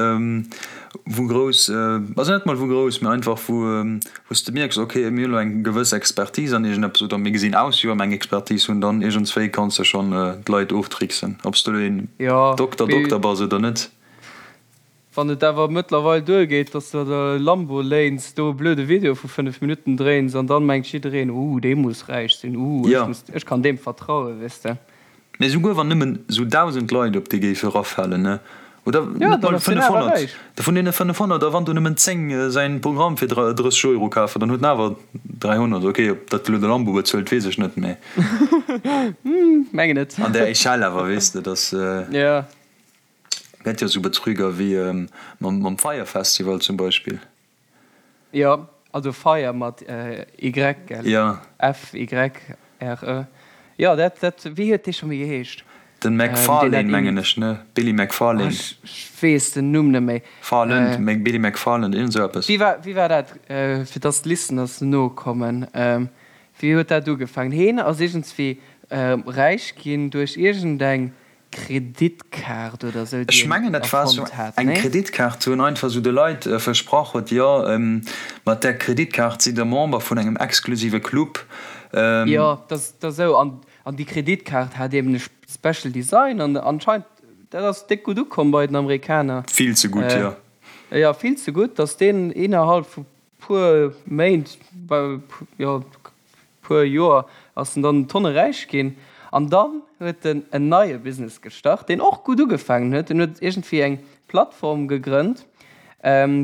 wou grouss, also net mol wou grouss, mee einfach wou, wou s de mierks, ok, mir hunn elo eng gewëss Expertise an iergendeppes oder mir gesinn aus, wéi wa mir eng Expertise hunn, dann iergendswéi kanns de schonn d'Leit oftricksen, ob s de elo een Jo, Dokter, mee. Dokter bass oder net. Wann et awer mëttlerweil duergeet, dass de der e Lambo léins, do e blöde Video vu 5 Minutten dréins an dann mengt jiddereen, uh, dee muss räich sinn, uh, ech Jo. muss, ech kann deem vertrauen, weess de. Mee souguer wann nëmmen sou 1.000 Leit op dee géife rafalen, ne, oder Jo, net dann mol ass deen awer 500, räich. vun deene 500, a wann do nëmmen 10 säin Programm fir 30 Euro kafen, dann huet en awer 300. Ok, ob dat elo de Lambo bezuelt, weess ech net, mee. Mengen net. An där Echelle awer, weess de, dass. Jo. Gett jo sou Betrüger wéi mam Fyre Festival zum Beispill. Jo, also Fire mat Y, gell? Jo. F-Y-R-E. Jo, dat, dat, wéi huet dee scho méi geheescht? Den McFarlane mengen ech, ne? Billy McFarlane. Ech weess den Numm net méi. Farland, Billy McFarland, iergend sou eppes. Wéi war, wéi war dat, fir dass d'Listeners nokommen, wéi huet dat ugefaangen? Heen ass iergendswéi räich ginn duerch iergendeng Kreditkaart oder sou, déi Ech mengen en dat war sou erfonnt hat, eng nee? Kreditkaart, wou en einfach sou de Leit versprach huet, jo mat där Kreditkaart sidd der Member vun engem exklusive Club. Jo, dat ass esou. An An déi Kreditkaart hat eben e Special Design an anscheinend, dat ass déck gutt ukomm bei den Amerikaner. Vill ze gutt, jo. Jo, vill ze gutt, dass deen innerhalb vu puer Méint, jo, puer Joer ass en dann Tonne räich ginn. An dann huet en en neie Business gestart, deen och gutt ugefaangen huet. En huet iergendwéi eng Plattform gegrënnt,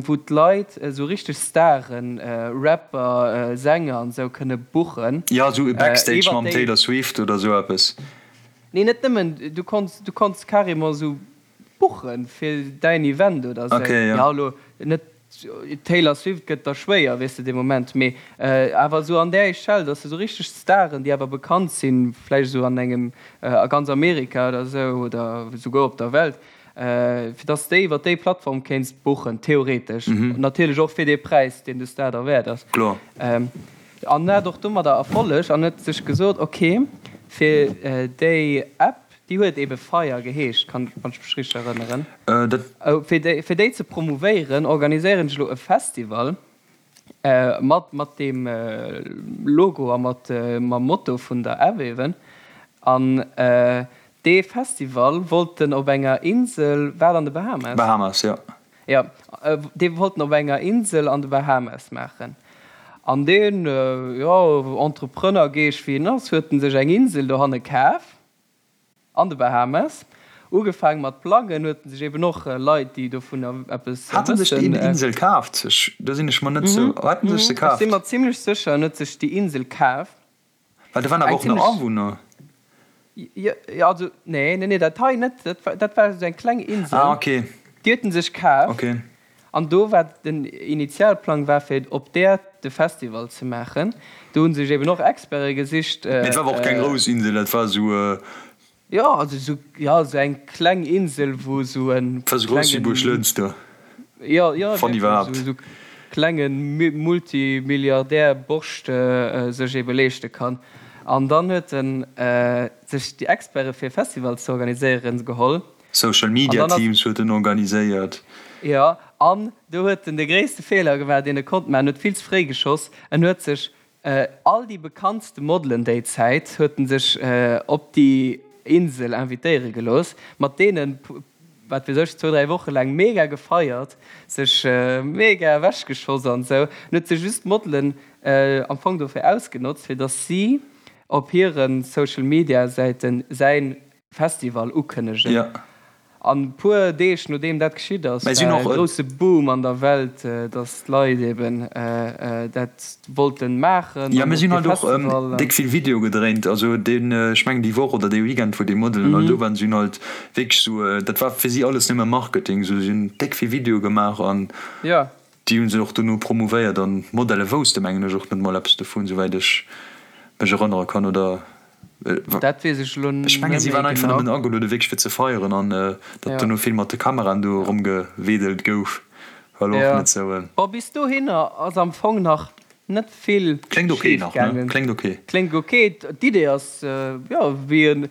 wou d'Leit esou richteg Staren, Rapper, Sänger an esou kënne buchen. Jo, esou e Backstage mam Taylor Swift oder esou eppes. Nee, net nëmmen, du konns, du konns carrément esou buchen fir däin Event oder esou. Okay, jo. Ja, elo net Taylor Swift gëtt da schwéier, weess de, dee Moment, mee awer esou an där Echelle, dass de esou richteg Staren, déi awer bekannt sinn, vläicht esou an engem, a ganz Amerika oder esou oder esouguer op der Welt, fir dass de iwwer déi Plattform kéints buchen, theoretesch. Natierlech och fir dee Präis, deen de Star der wäert ass. Kloer. An hat och domadder Erfolleg an huet sech gesot, ok, fir déi App, Déi huet ebe Fire geheescht, wann ech mech richteg erënneren. Fir déi, fir déi ze promouvéieren, organiséieren ech elo e Festival mat, mat deem Logo a mat, mam Motto vun der App eben. An dee Festival wollt en op enger Insel, war et an de Bahamas? Bahamas, jo. Jo, dee wollt en op enger Insel an de Bahamas maachen. An deen, jo, Entrepreneur-Geescht wéi en ass, huet en sech eng Insel dohanne kaf. An de Bahamas. Ugefaang mat plangen, huet en sech eben och Leit, déi dovunner eppes wëssen. Hat en sech déi Insel kaaft? Do sinn ech mer net sou. Hat en sech se kaaft? Ech si mer zimlech sécher, en huet sech déi Insel kaaft. Well do waren awer och nach Awunner. Jo, also nee, nee, nee, dat hei net. Dat war esou eng kleng Insel. Ah, okay. Déi huet en sech kaaft. Okay. An do war den Initialplang war fir op där de Festival ze maachen. Do hu sech eben och Experte gesicht. Mee et war awer och keng grouss Insel, dat war esou. Jo, also esou, jo, esou eng kleng Insel, wou esou e klengen. War esou grouss wéi Buerglënster. Jo, jo, wann iwwerhaapt. Esou klenge Multimilliardär Borscht sech ebe leeschte kann. An dann huet en sech déi Experte fir e Festival ze organiséieren geholl. Social Media Teams huet en organiséiert. Jo, an do huet en de gréisste Feeler gemaach, deen e konnt maachen. En huet vill ze fréi geschoss. En huet sech all déi bekanntste Modelen déi Zäit huet en sech op déi Insel invitéiere gelooss, mat deenen, wat weess ech, zwou, dräi Woche laang mega gefeiert, sech mega ewechgeschoss an esou. En huet sech just d'Modelen am Fong dofir ausgenotzt, fir datt si op hire Social Media Säiten säin Festival ukënnegen. Ja. An puer Deeg nodeem dat geschitt ass, war e grousse Boom an der Welt, dass d'Leit eben dat wollten maachen. Jo, mir sinn halt och déck vill Video gedréint. Also deen, ech mengen déi Woch oder dee Weekend, wou déi Modelen all do waren, si hunn halt wierklech sou, dat war fir si alles nëmme Marketing, sou si hunn déck vill Video gemaach an déi hu se och dono promouvéiert an d'Modele wousste mengen ech och net mol eppes dovun, souwäit ech mech erënnere kann, oder? Dat weess ech elo Ech mengen si waren einfach nëmmen ageluede wierklech fir ze feieren an datt dono vill mat de Kameraen do eromgewedelt gouf war elo och net sou. Bon, bis dohinner ass am Fong nach net vill Kléngt ok schif nach, ne? gaangen. Kléngt ok. Kléngt ok. D'Idee ass, jo, wéi e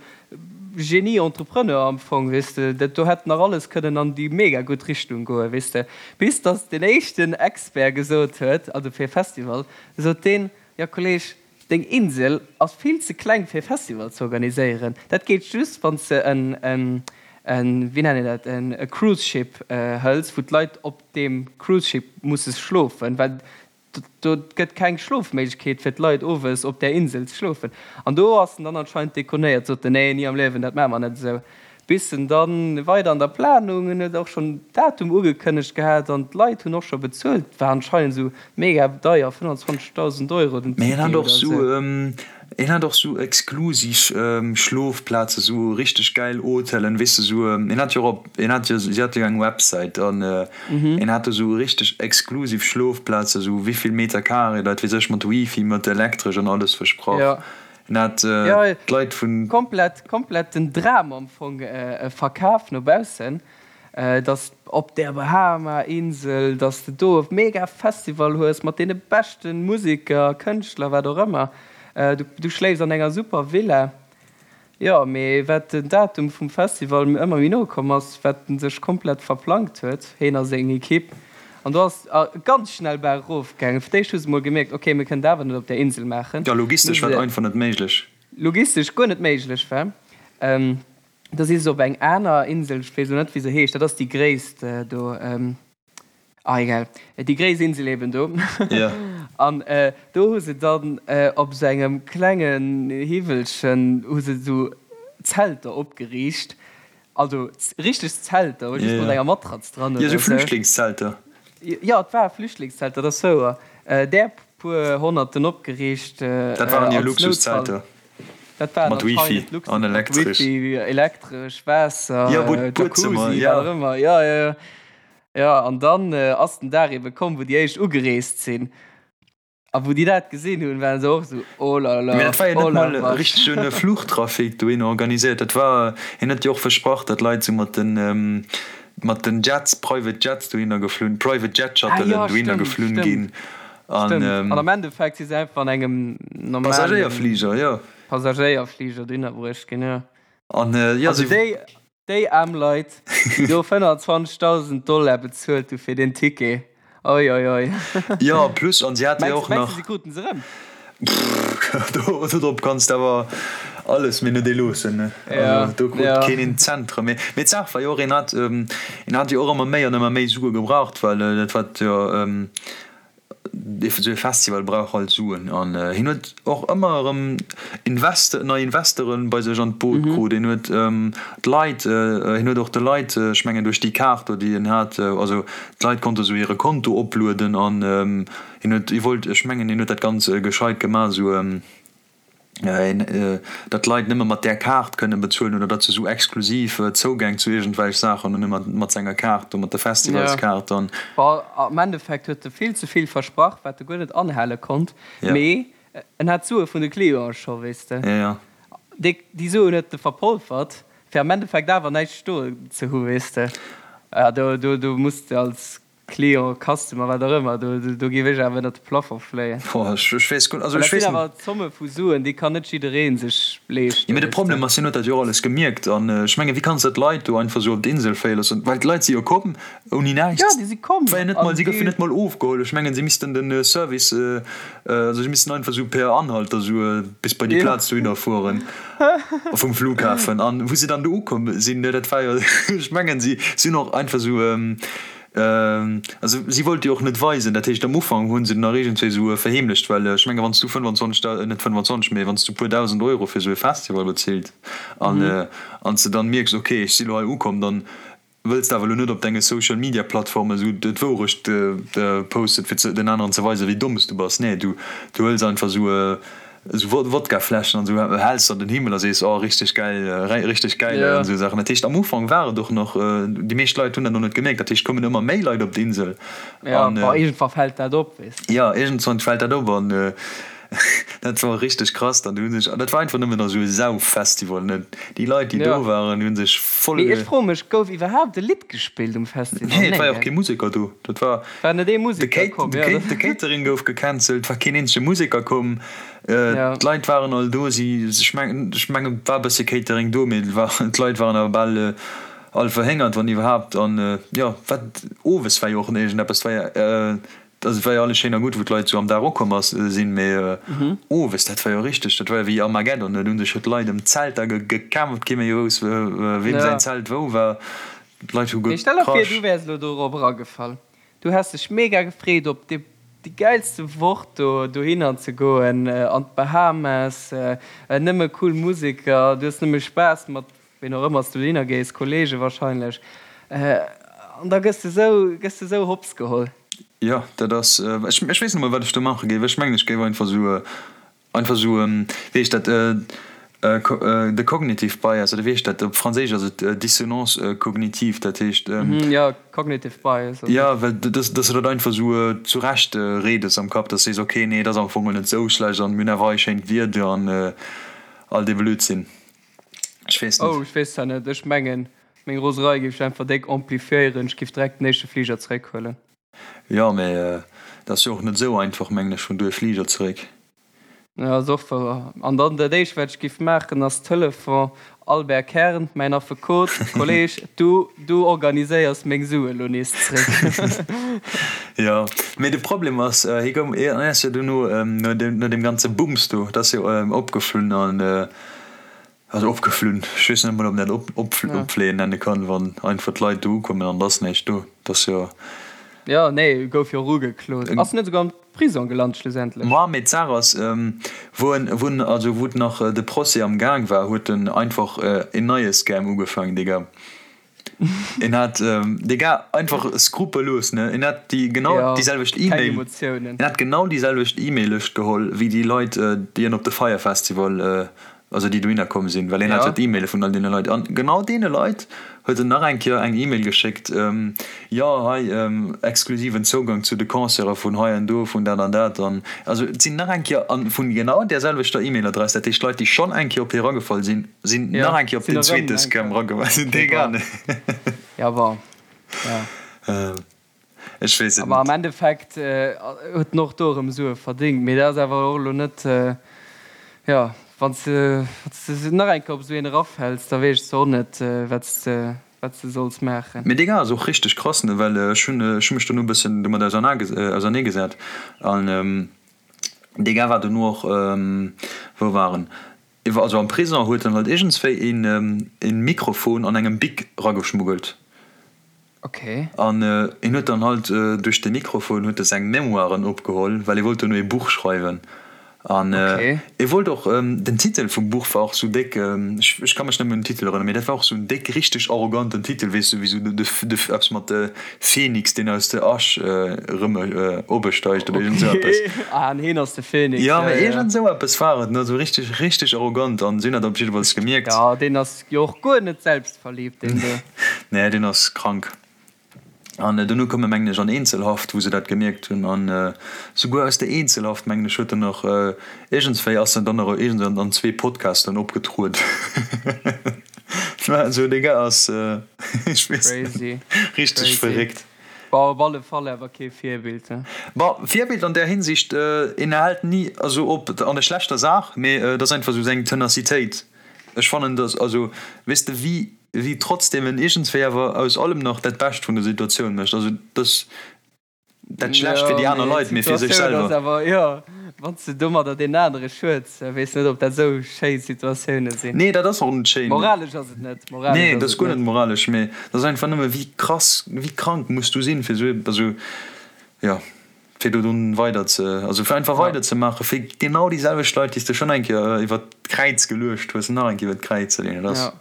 Genie-Entrepreneur am Fong, weess de. Dat do hätt nach alles kënnen an déi mega gutt Richtung goen, weess de. Bis datt deen éischten Expert gesot huet, also fir e Festival, sot deen, Jo Kolleg, Deng Insel ass vill ze kleng fir e Festival ze organiséieren. Dat geet just wann s de en, en, wéi nennt een dat, en e Cruise Ship hëls, wou d'Leit op deem Cruise Ship musse schlofen, well do gëtt keng Schlofméiglechkeet fir d'Leit owes op där Insel ze schlofen. An do ass en dann anscheinend dekonéiert, sot en, nee, ni am Liewen, dat maache mer net esou. Bis en dann weider an der Planung, en huet och schonn Datum ugekënnegt gehat an d'Leit hunn och scho bezuelt, war anscheinend esou mega deier, 25.000 Euro den Mee en hat och sou, en hat och sou exklusiv Schlofplaze, sou richteg gäil Hotelen, weess de, sou, en hat jo och op, en hat jo, si hate jo eng Websäit an en hat do sou richteg exklusiv Schlofplaze, sou wéivill Meter Carré, dat weess ech, mat Wifi, mat Elektresch an alles versprach. En hat d'Leit vun. Komplett, komplett den Dram am Fong verkaf no baussen, dass op der Bahama-Insel, dass de do e mega Festival hues mat deene beschte Museker, Kënschtler, wat och ëmmer. Du schléifs an enger super Villa. Jo, mee wat den Datum vum Festival ëmmer méi no komm ass, wat en sech komplett verplangt huet, heen a seng Ekipp. An do ass ganz schnell berg erof gaangen. Fir d'éischt hu se mol gemierkt, ok, mir kënnen dat awer net op där Insel maachen. Jo, logistesch war et einfach net méiglech. logistesch guer net méiglech war. Da si se op eng aner Insel, ech weess elo net wéi se heescht, dat ass déi gréisst do, ah egal, déi gréisst Insel eben do. An do hu se dann op esou engem klengen Hiwwelchen hu se esou Zelter opgeriicht, also richteg Zelter, just mat enger Matratz dran oder esou. Jo, esou Flüchtlingszelter. Jo, et war Flüchtlingszelter, dat ass wouer. Där puer Honnerten opgeriicht als Noutfall. Dat waren jo Luxuszelter. Dat waren Mat Wifi an Elektresch. Wifi, Elektresch, Waasser, ja, Jacuzzi, ja. wat och ëmmer. Ja, ja, ja. Ja, an dann ass den Dag ebe komm, wou déi éischt ugereest sinn. A wou déi dat gesinn hunn, waren se och esou, Oh la la, Mee dat war jo oh net la mol vache. richtegen Fluchtrafic dohinner organiséiert. Dat war, hien huet jo och versprach, datt Leit sou mat den, mat den Jets, Private Jets dohinner geflunn, Private Jet Ah Shuttelen jo, dohinner stëmmt, geflunn stëmmt. ginn. An, Stëmmt. An am Endeffekt si se einfach an engem normalen Passagéierfliger, jo. Passagéierfliger dohinner bruecht ginn, jo. An, jo, Also si. déi, déi aarm Leit, déi do 25.000 Dollar bezuelt hu fir deen Ticket, oi, oi, oi. Jo, plus, an si hate jo Mengs, och mengs de, nach. si kruten se erëm? Pff, do, dodrop kanns de awer alles, mee net ee loossen, ne? Ja, Also, do krut ja. keen een Cent erëm. Mee, mee d'Saach war jo och, een hat, een hat jo och ëmmer méi an ëmmer méi Sue gebraucht, well dat wat jo, Esou e Festival brauch halt Suen an hien huet och ëmmer erëm Investe nei Investere bei sech an d'Boot krut. Hien huet d'Leit, hien huet och de Leit, ech mengen duerch déi Kaart do déi en hat, also d'Leit konnte sou hire Konto oplueden an hien huet, hie wollt, ech mengen hien huet dat ganz gescheit gemaach esou, datt d'Leit nëmme mat där Kaart kënne bezuelen oder datt se esou exklusiv Zougäng zu iergendwelch Saachen hunn, nëmme mat senger Kaart do, mat der Festivalskaart dann. Bon, am Endeffekt huet e vill ze vill versprach, wat e guer net anhale konnt, mee en hat d'Sue vun de Clienten scho, weess de. Déi Suen huet e verpolfert, fir am Endeffekt awer näischt stoen ze hu, weess de. Do, do, do muss de als Client, Customer, wat och ëmmer, do, do géif ech awer ënnert de Plafond fléien. Boah, ech, ech weess guer, also Well ech dat sinn weess net. awer Zomme vu Suen, déi kann net jidderee sech leeschten, Jo, mee de weess de. Problem ass, hien huet dat jo och alles gemierkt an ech mengen, wéi kanns de d'Leit do einfach esou op d'Insel fléie loossen? Well d'Leit si jo komm ouni näischt. Jo, déi si komm War jo net mol, an si goufen déi. net mol ofgeholl. Ech mengen, si missten den Service, also si missten einfach esou per Anhalter esou bis bei déi Jo. Plaz dohinner fueren vum Flughafen. An wou si dann do ukomm sinn, dat war jo, ech mengen, si sinn och einfach esou, Also si wollt jo och net weisen, dat heescht am Ufank hu se nach iergendwéi esou verheemlecht, well ech menge wann s du 25, net 25, mee wann s du e puer 1.000 Euro fir esou e Festival bezilt an an s de dann mierks, ok ech si lo hei ukomm, dann wëlls de awer elo net op denge Social Media Plattforme esou d'Wourecht posten, fir den aneren ze weisen, wéi domm s du bass. Nee, du hëls einfach esou Esou Wodkafläschen an esou häls an den Himmel a sees, oh richteg gäil, richteg gäil an esou Saachen. Dat heescht am Ufank war et och nach, déi meescht Leit hunn dat och net gemierkt, dat heescht kommen ëmmer méi Leit op d'Insel. Jo, bon iergendwann fält dat op, weess de. Jo, iergendwann fält dat op an dat war richteg krass dann. Déi hu sech, dat war einfach nëmmen esou e Sauffestival, ne. Déi Leit déi do waren, déi hu sech voll. Mee ech froe mech, gouf iwwerhaapt e Lidd gespillt um Festival? Nee, et war jo och kee Museker do. Dat war. War net ee Museker komm, jo. De Catering gouf gecancelt, war keen eenzege Museker komm. D'Leit waren all do, si, ech mengen, ech mengen et war e bësse Catering do, mee et war, d'Leit waren awer bal all verhéngert, wann iwwerhaapt. An jo, wat, owes war jo och iergendeppes, et war jo, also et war jo alles schéin a gutt, wou d'Leit esou am Dag ukomm ass, sinn, mee owes, dat war jo richteg, dat war jo wéi Armageddon, do hu sech jo d'Leit ëm d'Zelter gekämpft, kee méi wousst, weem säin Zelt wou war, d'Leit hu Mee stell der vir, gekrasch. du wäers elo dorop eragefall. Du häss dech mega gefreet op déi gäilste Woch do dohinner ze goen, an d'Bahamas, nëmme cool Museker, du hues nëmme Spaass mat ween och ëmmer s du dohinner gees, Kollege wahrscheinlech, an da gëss de sou, gëss de sou hops geholl. Jo, dat ass, ech weess net mol wat ech do maache géif. Ech mengen ech géif einfach sou Einfach esou, wéi heescht dat, de cognitive bias, oder wéi heescht dat, op Franséisch ass et dissonance cognitive, dat heescht. Jo, cognitive bias ass et. Jo, well dass de dat einfach esou zurecht redes am Kapp, dass de sees, ok, nee, et ass am Fong net esou schlecht an mir hunn awer hei schéint Wieder an all dee Blödsinn. Ech weess net. Oh, ech weess zwar net, ech mengen, meng Roserei géif ech einfach déck amplifiéieren, ech géif direkt den éischte Fliger zeréckhuelen. Jo, mee et ass jo och net esou einfach, mengen ech, vun do e Fliger zeréck. Jo, ass och wouer. An dann dat éischt wat ech giff maachen ass Telefon, Albert Kern, mäin Affekot, Kolleg, du, du organiséiers meng Sue lo nees zréck. Jo, mee de Problem ass, hie goung, hien ass jo dono, no deem, no deem ganze Bums do, dat ass jo opgeflunn an, also opgeflunn, ech weess net emol ob een dat op, op, opfléien nenne kann, wann einfach d'Leit do ukommen an et ass näischt do, dat ass jo. Jo, nee, gouf jo och ugeklot. Ass net esouguer am Prison gelant schlussendlech. Ma mee d'Saach ass, wou en, wou en, also wou nach de Procès am Gaang war, huet en einfach een neie Scam ugefaangen, Digga. En hat, Digga, einfach skrupellos, ne, en hat déi genau Ja, déi selwecht keng E-Mail, Emotiounen. en hat genau déi selwecht E-Mail-Lëscht geholl wéi déi Leit, déi en op de Fyre Festival also déi dohinner komm sinn, well hien hat jo Ja. d'E-Maile vun all deene Leit. An genau deene Leit huet en nach eng Kéier eng E-Mail geschéckt, Jo, hei, exklusiven Zougang zu de Concerte vun hei an do, vun dat an dat. An also et sinn nach eng Kéier, a vun genau där selwechter E-Mail-Adress, dat heescht Leit, déi schonn eng Kéier op hie eragefall sinn, sinn Ja, nach eng Kéier op sinn deen erëm zweete eng Scam Kéier. eragefall. Okay, Dee bon. Ja, bon. Ja. Ech weess et Awer am net. Endeffekt huet en och do erëm Sue verdéngt. Mee dat ass awer och elo net, jo, wann s de nach eng Kéier op esou een erafäls, da weess de och net, wat s de, wat s de solls maachen. Mee dee Gars ass och richteg krass, ne, well ech hunn, ech hu mech dono e bëssen domat auserneegesat an dee Gars war dono och, wou war en, iwwer, also am Prison huet en halt iergendswéi een, een Mikrofon an engem Bic rageschmuggelt. Okay. An en huet dann halt duerch de Mikrofon huet e seng Memoiren opgeholl, well e wollt dono ee Buch schreiwen. An e wollt och, den Titel vum Buch war och sou déck, ech ech ka mech net méi un den Titel erënneren, mee dat war och sou en déck richteg arroganten Titel, weess du, wéi sou de de eppes mat de Phoenix, deen aus der Asch erëm opesteigt oder iergend sou eppes. Okay, ah an heen ass de Phoenix, Jo, ja, mee ja. iergend sou eppes war et, ne, sou richteg richteg arrogant an si hunn dat op jiddefalls gemierkt. Jo, deen ass Jo och guer net selbstverliebt deen do. Nee, deen ass krank. An dono koum e mengen ech an Eenzelhaft, wou se dat gemierkt hunn. An souguer aus der Eenzelhaft mengen ech huet en nach iergendswéi ass en dann nach iergends an zwee Podcasten opgetrueden. Also dee Gars ass, ech weess net, Crazy, richteg crazy. verréckt. Bon, op alle Fall awer kee Virbild, he? Bon, Virbild an där Hinsicht, en hält ni also op an der schlechter Saach, mee et ass einfach esou seng Tenacitéit. Ech fannen dass, also weess de wéi wéi trotzdem en iergendswéi awer aus allem nach dat Bescht vun der Situatioun mécht. Also dass dat schlecht fir Jo, déi aner mee Leit, mee fir sech d'Situatioun ass selwer. awer, jo, wann s de domadder deen anere schueds, weess net ob dat esou schéi Situatioune sinn. Nee, dat ass och net schéin. Moralesch ass et net, moralesch Nee, ass dat ass et guer net net. moralesch, mee dat ass einfach nëmme wéi krass, wéi krank muss du sinn fir esou, also jo. Fir do dunn weider ze, also fir einfach Ja. weider ze maachen, fir genau déi selwecht Leit, déi s de schonn eng Kéier iwwer d'Kräiz geluecht hues, nach eng Kéier iwwer d'Kräiz ze leeën. Dat ass. Ja.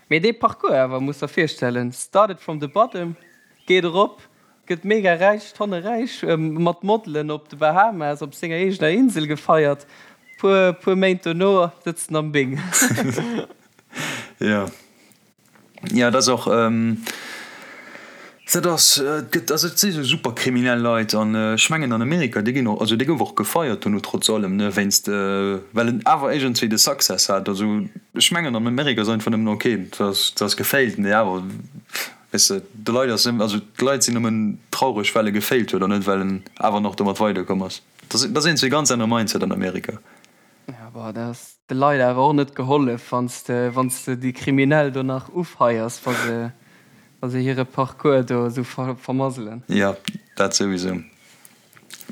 Mee dee Parcours awer, muss der virstellen, started from the bottom, geet erop, gëtt mega räich, tonne räich, mat Modelen op de Bahamas op senger eegener Insel gefeiert, puer, puer Méint dono sëtzt en am Bing. Jo. Jo, dat ass och, dat ass, et gëtt, also et si sou super kriminell Leit an ech mengen an Amerika, dee ginn och, also dee gouf och gefeiert dono trotz allem, ne, wéinst, well en awer iergendswéi de Success hat. Also ech mengen an Amerika ass einfach nëmmen ok, dat ass, dat ass gefailt, mee awer, weess de, de Leit ass, also d'Leit sinn nëmmen traureg well e gefailt huet an net well en awer nach domat weiderkomm ass. Dat ass, dat ass iergendswéi ganz anere Mindset an Amerika. Ja, boah, dat ass de Leit awer och net gehollef, wann s de, wann s de déi Kriminell do nach ufeiers, wa se, wa se hire Parcours do esou ver, vermasselen. Jo, dat souwisou.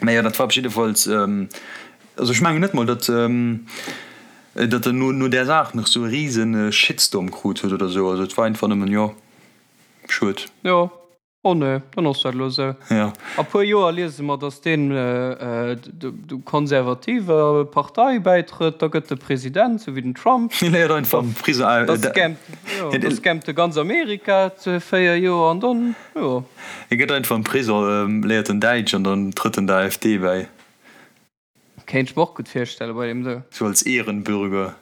Mä jo, dat war op jiddefalls, also ech mengen net mol, datt, datt en no, no där Saach nach esou e rise Shitstorm krut huet oder esou. Also et war einfach nëmmen, jo, schued. Jo. Oh nee, dann ass dat elo esou. Ja. A puer Joer liese mer, datt deen der konservativer Partei bäitrëtt, da gëtt e President, sou wéi den Trump. Hie léiert einfach am Prison. Da scammt, jo, da scammt e ganz Amerika 4 Joer an dann, jo. Hie gëtt einfach am Prison, léiert en Däitsch an dann trëtt en der AfD bäi. Kéint ech mer och gutt virstellen bei deem do. Sou als Ehrenbürger.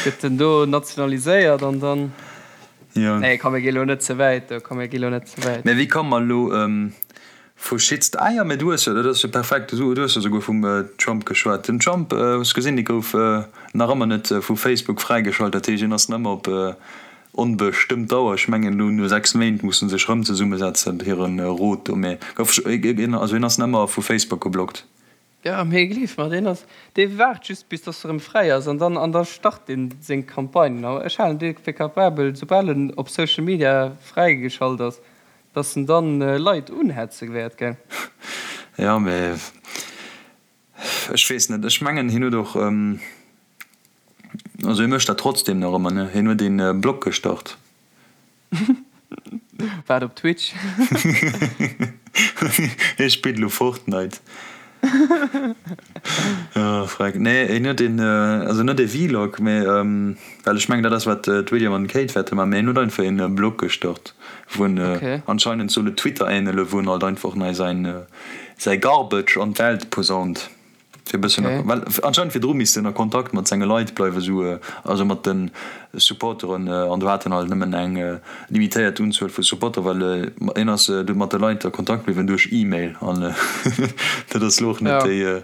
Gëtt en do nationaliséiert an dann. Jo. Nee komm mir gi lo net ze wäit do, komm mir gi lo net ze wäit. Mä wéi komme mer elo vu Shitst-, ah jo, mä du hues jo, dat ass jo perfekt, du hues jo souguer vum Trump geschwat. Den Trump, hues gesinn, dee gouf nach ëmmer net vu Facebook fräigeschalt, dat heescht, hien ass nach ëmmer op Onbestëmmt Dauer, ech mengen elo no 6 Méint musse sech rëm zesummesetzen, hire Rot do, mee gouf also hien ass nemmer vu Facebook geblockt. Jo, mee gleef mer, deen ass, dee waart just bis dass e rëm fräi ass an dann, an da start deen seng Campagne. A ech halen dee fir capabel, soubal en op Social Media fräigeschalt ass, dass en dann Leit unhetze wäert, gell? Jo, mee ech weess net. Ech mengen hien huet och, also hie mécht dat trotzdem nach ëmmer, ne? Hien huet een Blog gestart. Waart op Twitch. Hie spillt elo Fortnite. Oh freck. Nee hien huet een, also net ee Vlog, mee well ech mengen dat ass wat d'William an d'Kate wäerte man, mee hien huet einfach een Blog gestart wou en anscheinend soll et Twitter ähnele wou en halt einfach nei säin säi Garbage an d'Welt posaunt. Fir e bëssen a, well anscheinend virdru misst en a Kontakt mat senge Leit bleiwen, esou, also mat de Supporteren, an do hat en halt nëmmen eng limitéiert Unzuel vu Supporter, well hien ass du mat de Leit a Kontakt bliwwen duerch E-Mail, an dat ass lo och net déi.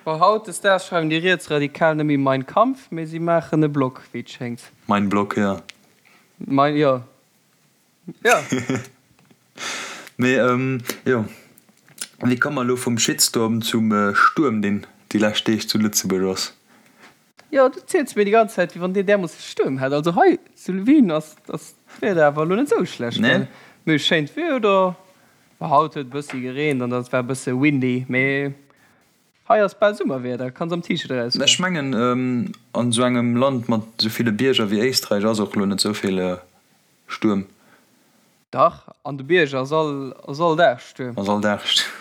Bon, hautdesdaags schreiwen déi Rietsradikal net méi Mein Kampf, mee si maachen e Blog, wéi et schéngt. Mein Blog, jo. Mein, jo. Jo. Mee jo, wéi komme mer elo vum Shitstorm zum Stuerm, deen déi lescht Deeg zu Lëtzebuerg ass? Jo, du ziels mir déi ganz Zäit, wéi wann dir därmoosse Stuerm hätt. Also hei zu Wien ass d'Wieder awer elo net esou schlecht, gell? Mir hu schéint Wieder. Haut huet e bëssi gereent an et war e bësse windy, mee hei ass bal Summerwieder, kanns am T-Shirt erausgoen. Ech mengen, an esou engem Land mat esou ville Bierger wéi Éisträich ass och elo net esou vill Stuerm. Dach, an de Bierger ass all ass all Dag Stuerm. Ass all Dag Stuerm.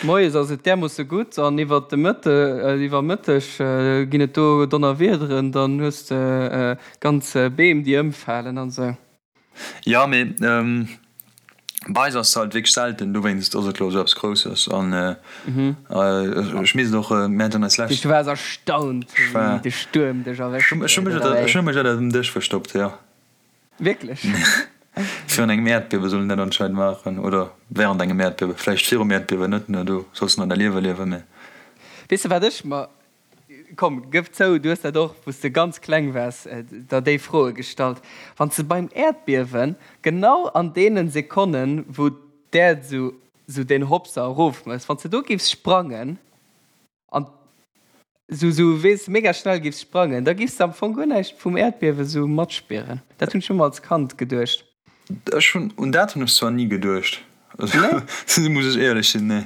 Moies ass et därmoosse gutt an iwwer de Mëtte iwwer Mëtteg ginn et do Donnerwiederen, dann hues de ganz Beem déi ëmfalen an esou. Jo, mee bei eis ass se halt wierklech selten, dowéinst ass et elo esou eppes Grousses an ech misst och, mir haten eis lescht. Du waars erstaunt wéi de Stuerm dech erwëscht huet, oder wéi? Ech hu mech ënnert dem Dësch verstoppt, jo. Wierklech? Virun engem Äerdbiewe soll een dat anscheinend maachen, oder während engem Äerdbiewe, vläicht virum Äerdbiewen net, ne, do solls de nach däi Liewe liewen, mee. Weess de wat ech mer, komm gëff zou, du hues dat och wou s de ganz kleng waars der déi Froe gestallt, wann s de beim Äerdbiewen genau an deenen Sekonnen wou d'Äerd sou sou deen Hopser erof mécht, wann s de do giffs sprangen, An sou, sou, weess, mega schnell giffs sprangen, da giffs de am Fong guer näischt vum Äerdbiewe sou matspieren. Dat hunn ech ëmmer als Kand geduecht. Ech hunn, un dat hunn ech zwar ni geduecht, also muss ech éierlech sinn, nee.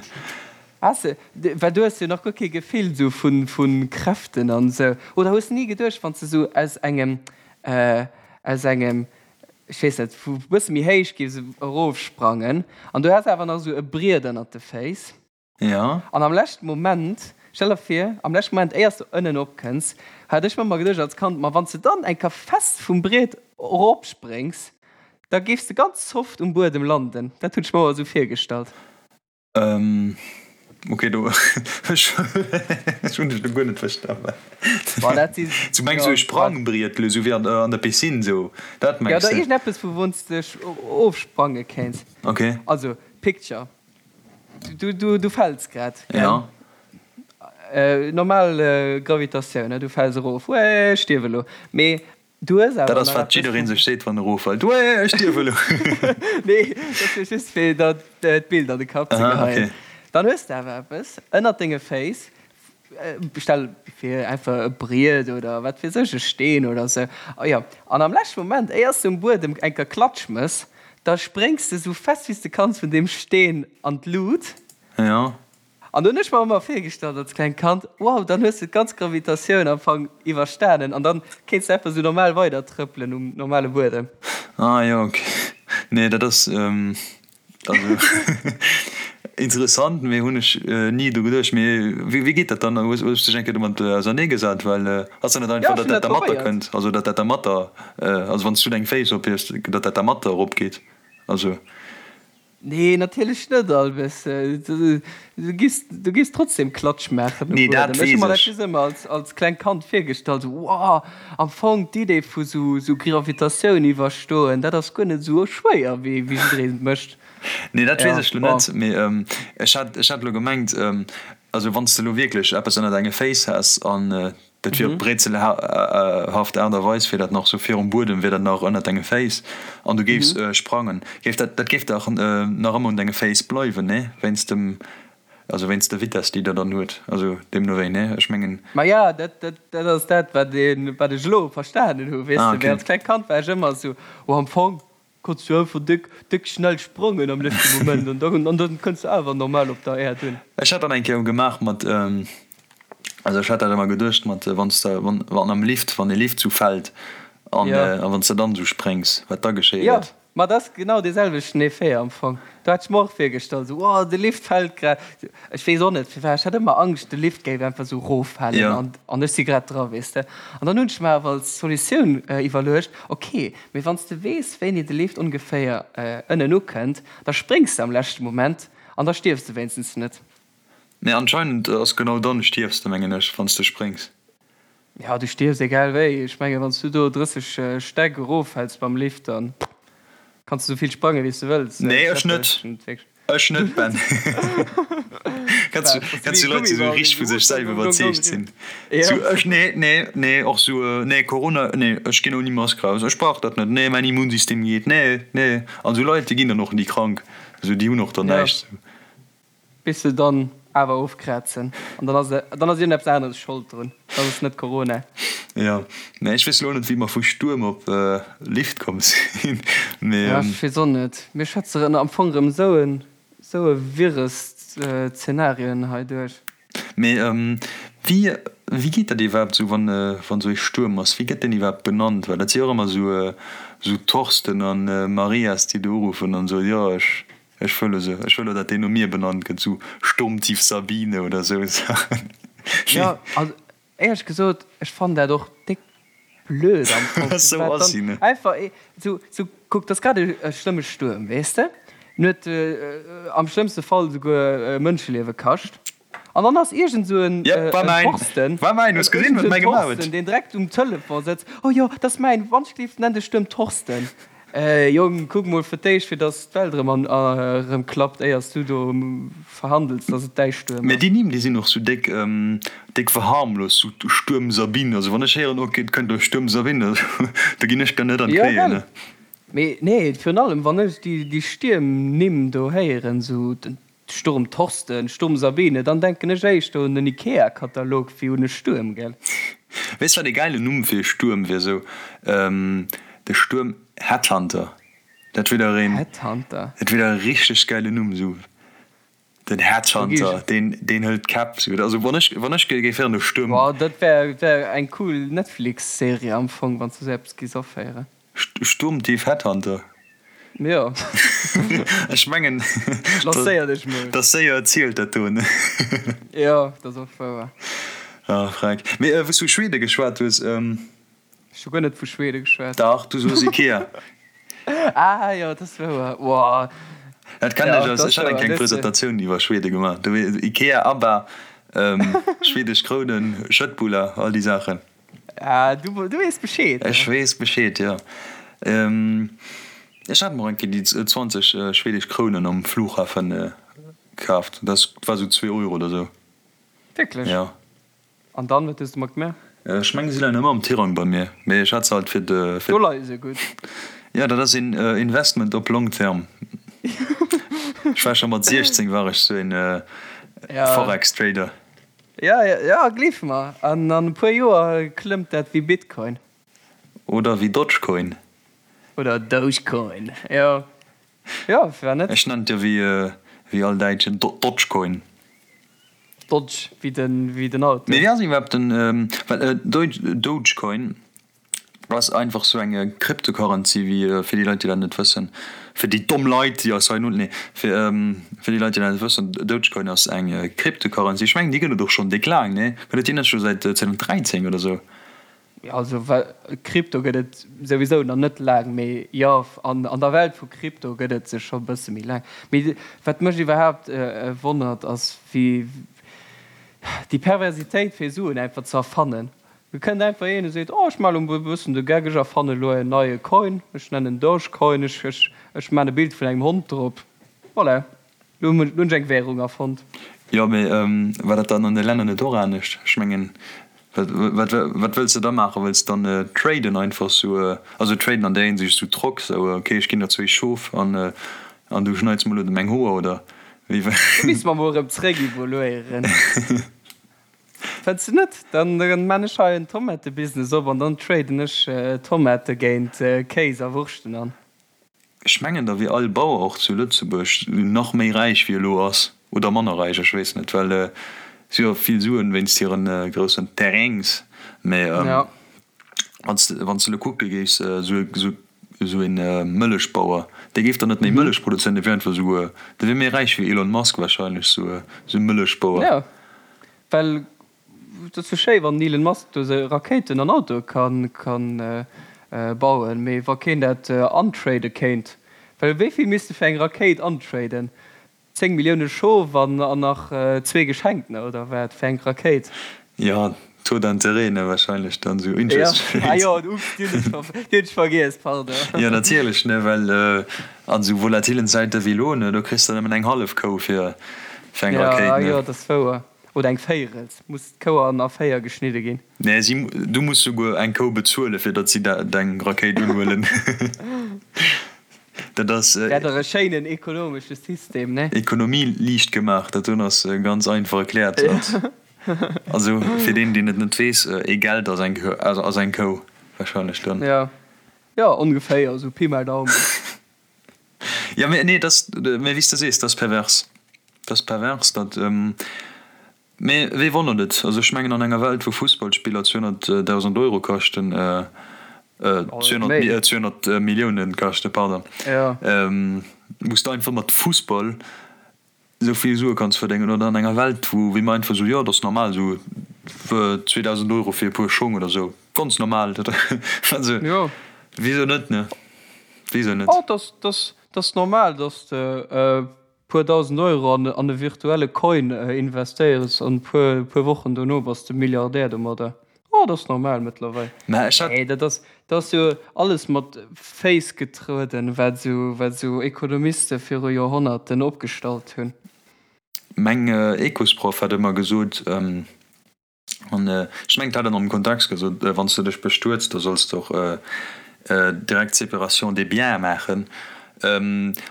Has de, well du hues jo nach guer kee Gefill sou vu, vu Kräften an sou. Oder hues de ni geduecht, wann s de sou aus engem, aus engem, ech weess net, vu bësse méi héich giffs erofsprangen an du häss awer nach sou e Briet ënnert de Féiss, Jo. An am leschten Moment, stell der vir, am leschten Moment, éiers de ënnen opkënns, hat ech mer ëmmer geduecht als Kand, ma wann s de dann eng Kéier fest vum Briet eropspréngs, da géifs de ganz soft um Buedem landen. Dat hunn ech mer ëmmer esou virgestallt. Ok, do ech hunn dech lo guer net verstanen. Boah, dat si, Du mengs esou jo, e Sprangbriet lo, esou wéi an der Piscine, esou, dat ja, mengs oder de? iergendeppes, vu wou s de dech ofsprange kéints. Ok. Also, picture. Du, du, du fäls grad, gell? Ja. Äh, normal äh, Gravitatioun, ne? Du fäls erof, Uäh, ech stierf elo. Mee du hues Dat awer ass nach wat eppes jiddereen vum. sech seet wann e roffält, Uäh, ech stierf elo. Nee, dat war just fir der d'Bild an de Kapp ze Aha, geheien. okay. Dann hues de awer eppes ënnert denge Féiss, stell fir einfach e Briet oder wat weess ech, e Steen oder sou, oh jo, an am leschte Moment, éiers de um Buedem eng Kéier Klatsch mëss, da spréngs de sou fest wéi s de kanns vun deem Steen an d'Lut. Jo. An do hunn ech mer ëmmer virgestallt als klengt Kand, wow, dann hues de d'ganz Gravitatioun am Fong iwwerstanen an dann kéints de einfach sou normal weider trëppelen um normale Buedem. Ah jo, ok. Nee, dat ass. Also interessant, mee hunn ech ni dru geduecht. Mee wéi geet dat dann? Hues du dech eng Kéier domat ausernee gesat? Well ass dat net Ja, einfach, ech datt hunn dat dat dermatter probéiert. kënnt? Also datt dat dermatter, also wann s du deng Féiss ophiefs, datt dat dermatter eropgeet? Also. Nee, natierlech net, Albes. Du giffs, du giffs trotzdem Klatsch maachen um Nee, dat Buedem. Ech hu weess mer dat ech. just ëmmer als, als klengt Kand virgestallt, sou, Wow, am Fong d'Idee vu sou, sou Gravitatioun iwwerstoen, dat ass guer net sou schwéier, wéi, wéi jiddereen et mécht. Nee, dat weess Ja, ech lo bon. net, mee ech hat, ech hat lo gemengt, also wann s de lo wierklech eppes ënner denge Féiss häss an dat wier op brézelhaft Aart a Weis, wier dat nach sou virum Buedem, wier dat nach ënner denge Féiss an du géifs sprangen, géif dat, dat géif dach nach ëmmer un denge Féiss bleiwen, nee? Wéinst dem. Also wéinst der Vitess, déi der dann huet. Also deemno wéi, nee? Ech mengen. Maja, dat, dat, dat ass dat, wat een, wat ech elo verstanen hu, weess de. Mee als klengt Kand war ech ëmmer esou, oh, am Fong kanns du einfach déck, déck schnell sprangen am leschte Moment an dann, an dann kënns du awer normal op der Äerd un. Ech hat dat eng Kéier gemaach mat, also ech hat dat ëmmer geduecht mat, wann s de, wann, wann am Lift, wann e Lift sou fält an, a wann s de dann esou spréngs, wat da geschéie gëtt. Ma dat ass genau dee selwechten Effet am Fong. Do hat ech mer och virgestallt, esou, oh, de Lift fält grad. Ech weess och net firwat, ech hat ëmmer Angscht, de Lift géif einfach esou eroffalen an, an ech si grad dra, weess de. An dann hunn ech mer awer als Solutioun iwwerluecht, ok, mee wann s de weess, wéini de Lift ongeféier ënnen ukënnt, da spréngs de am leschte Moment an da stierfs de wéinstens net. Nee, anscheinend ass genau dann stierfs de, mengen ech, wann s de spréngs. Jo, du stierfs egal wéi. Ech mengen, wann s du do 30 Stäck eroffäls mam Lift, dann kanns du sou vill sprangen, wéi s du wëlls. Nee, ech net. Ech net, Ben. Kenns du, kenns du Leit, déi sou richteg vu sech selwer iwwerzeegt sinn? Sou, ech, nee, nee, nee, och sou, nee, Corona, nee, ech ginn ouni Mask raus, ech brauch dat net, nee, mäin Immunsystem geet, nee, nee. An sou Leit, déi ginn dann och ni krank, sou, déi hunn och dann näischt, sou. Bis se dann awer ofkrazen an dann ass dann ass iergendeppes aneres Schold drun, dann ass et net Corona. Jo, mä ech weess elo net wéi mer vu Stuerm op Lift komm sinn, mee. Jo, ech weess och net. Mir schwätze rëm am Fong rëm esou en esou e wirres Zenarien hei duerch. Mee wéi wéi geet dat iwwerhaapt esou wann wann esou ee Stuerm ass? Wéi gëtt deen iwwerhaapt benannt? Well dat si jo och ëmmer esou esou Thorsten an Marias déi do uruffen an soen, jo ech Ech wëll esou, ech wëll och dat deen no mir benannt gëtt, esou Sturmtief Sabine oder esou Saachen. Jo, also éierlech gesot, ech fannen dat och déck blöd am Fong. Esou ass si, ne? Einfach esou, esou, kuck, 't ass grad e schlëmme Stuerm, weess de, en huet am schlëmmste Fall esouguer Mënscheliewe kascht. An dann ass iergend esou en Thorsten, iergend esou en Thorsten, deen direkt um Telefon sëtzt, Oh jo, dat ass mäin, wann ech gleef, nenn de Stuerm Thorsten. Jong, kuck mol fir d'éischt, fir datt d'Welt erëm an erëm klappt, éier s du do verhandels, datt et däi Stuerm Mä déi ass. Nimm, déi sinn och sou déck, déck verharmlost, sou Stuerm Sabine. Also wann ech héieren, ok, et kënnt elo Stuerm Sabine, da ginn ech der net an d'Knéien, ne? Jo, gell? Mee nee, virun allem wann ech déi, déi Stiermnimm do héieren, sou den Sturm Thorsten, Sturm Sabine, dann denken ech éischter un den Ikea-Katalog wéi un e Stuerm, gell? Weess wat e gäilen Numm fir e Stuerm wier? Sou de Stuerm Headhunter, dat wier dach een, Headhunter? dat wier dach e richteg gäilen Numm, sou den Headhunter, deen, deen hëlt d'Käpp, sou. Also wann ech, wann ech géif héieren de Stuerm. Boah, dat wär, wär eng cool Netflix-Serie am Fong, wann s du sou eppes giss aféieren. Sturmtief Headhunter. Jo. Ech mengen, Lancéier dech mol. Dat ass séier erzielt, dat do, ne? Jo, dat ass och wouer. Ah, freck. Mee wou s du vu Schwede geschwat hues. Ech hu guer net vu Schwede geschwat. Dach, du soos Ikea. Ah jo, dat ass wouer. Woah. Dat kennen ech aus, ech hat eng kleng Presentatioun iwwer Schwede gemaach. Do, Ikea, ABBA, schwedesch Krounen, Schëttbuller, all déi Saachen. Ah, du, du weess Bescheed. Ech weess Bescheed, jo. Ech hat mer eng Kéier déi 20 schwedesch Krounen am Flughafen kaaft. Dat war sou zwee Euro oder sou. Wierklech? Jo. An dann, wat hues de mat gemaach? Ech mengen, si leien ëmmer am Tirang bei mir, mee ech hat se halt fir de. Do leie se gutt. Jo, dat ass een Investment op long terme. Ech war scho mat 16 war ech sou een Forex-Trader. Ja, ja, gleef mer, an an e puer Joer klëmmt dat wéi Bitcoin. Oder wéi Dogecoin. Oder Dogecoin, jo, jo, firwat net? Ech nennen et jo wéi, wéi all Däitschen, Dodgecoin. Dodge, wéi den, wéi den Auto. Mee wéi ass iwwerhaapt den, well Dogecoin Ass einfach sou eng Cryptocurrency wéi fir déi Leit déi dat net wëssen, fir déi domm Leit déi eis hei no, nee fir fir déi Leit déi dat net wëssen, Dogecoin ass eng Cryptocurrency, ech mengen déi gëtt et och schonn déck laang, nee gëtt et déi net scho säit 2013 oder sou? Jo also well Crypto gëtt et souwisou nach net laang, mee jo an an der Welt vu Crypto gëtt et se scho bësse méi laang. Mee wat mech iwwerhaapt wonnert ass wéi déi Perversitéit fir Suen einfach ze erfannen. Et kënnt einfach een a seet, oh ech maachen elo e bëssen de Geck, ech erfannen elo en neie Coin, ech nennen en Dogecoin, ech, ech, ech maachen e Bild vun engem Hond drop, voilà, elo hunn ech eng Währung erfonnt. Jo, mee war dat dann an de Länner net och anescht? Ech mengen, wat, wat, wat wëlls de da maachen? Wëlls de dann traden einfach sou, also traden an där Hinsicht sou trock, sou ok ech ginn der zwéi Schof an, an du schneits mer elo meng Hoer, oder? Do misste mer mol erëm zréck evoluéieren. Fënns de net? Dann man ech hei en Tomatebusiness op an dann traden ech Tomate géint Kéis a Wurschten an. Ech mengen da wier all Bauer och zu Lëtzebuerg nach méi räich wéi elo ass, oder manner räich, ech weess net, well si hu jo vill Suen wéinst hiren groussen Terrains. Mee wann s de elo kucke géifs, esou een Mëllechbauer, dee géif dann net méi Mëllech produzéieren, dee wier einfach esou, dee wier méi räich wéi Elon Musk wahrscheinlech, esou e Mëllechbauer. Jo, well et ass jo schéi wann den Elon Musk do sou Rakéiten an Autoe kann bauen, mee wa keen dat antrade kéint, well wéi vill misst e fir eng Rakéit antraden? 10 Millioune Schof an nach zwee Geschenktener oder wat fir eng Rakéit? Jo, Taux d'intérêt ne, wahrscheinlech dann esou Interest Rate. Ah jo, ups, déi hunn ech vergiess, pardon. Jo, natierlech ne, well an esou volatilen Zäite wéi elo ne, do kriss de nëmmen eng hallef Kou fir eng Rakéit ne. Jo, dat ass wouer. Oder eng Véierels. Muss d'Kou an a 4 geschnidde ginn? Nee, si, du muss souguer eng Kou bezuelen, fir datt si deng Rakéit unhuelen. Dat ass. Wär dach e schéinen ekonomesche System, ne? Ekonomie liicht gemaach, dat doen ass ganz einfach erkläert. Also fir deen, deen et net weess, ee Geld ass eng, ass eng Kou wahrscheinlech dann. Jo, jo, ongeféier, esou Pi mal Daumen. Jo, mee nee, dat, mee wéi s de sees, dat ass pervers. Dat ass pervers, dat. Mee wee wonnert et? Also ech mengen an enger Welt wou Fussballspiller 200.000 Euro kaschten, 200 Milliounen kaschten, pardon, wou s de einfach mat Fussball esou vill Sue kanns verdéngen, oder an enger Welt wou wéi mer einfach esou, jo et ass normal esou 2.000 Euro fir e puer Schong oder esou, ganz normal, also wisou net, ne? Wisou net? Et ass normal, dass de puer 1.000 Euro an e virtuelle Coin investéiers an puer puer Wochen dono bass de Milliardär domadder. Oh, dat ass normal mëttlerweil. Mä ech hat. Nee, dat ass, dat ass jo alles mat Féiss getrueden, wat esou, wat esou Ekonomiste viru Joerhonnerten opgestallt hunn. Meng Ecosproff hat ëmmer gesot, An ech mengen, et hat en am Kontext gesot, wann s de dech bestuets, da solls de och direkt d'Séparation des biens maachen.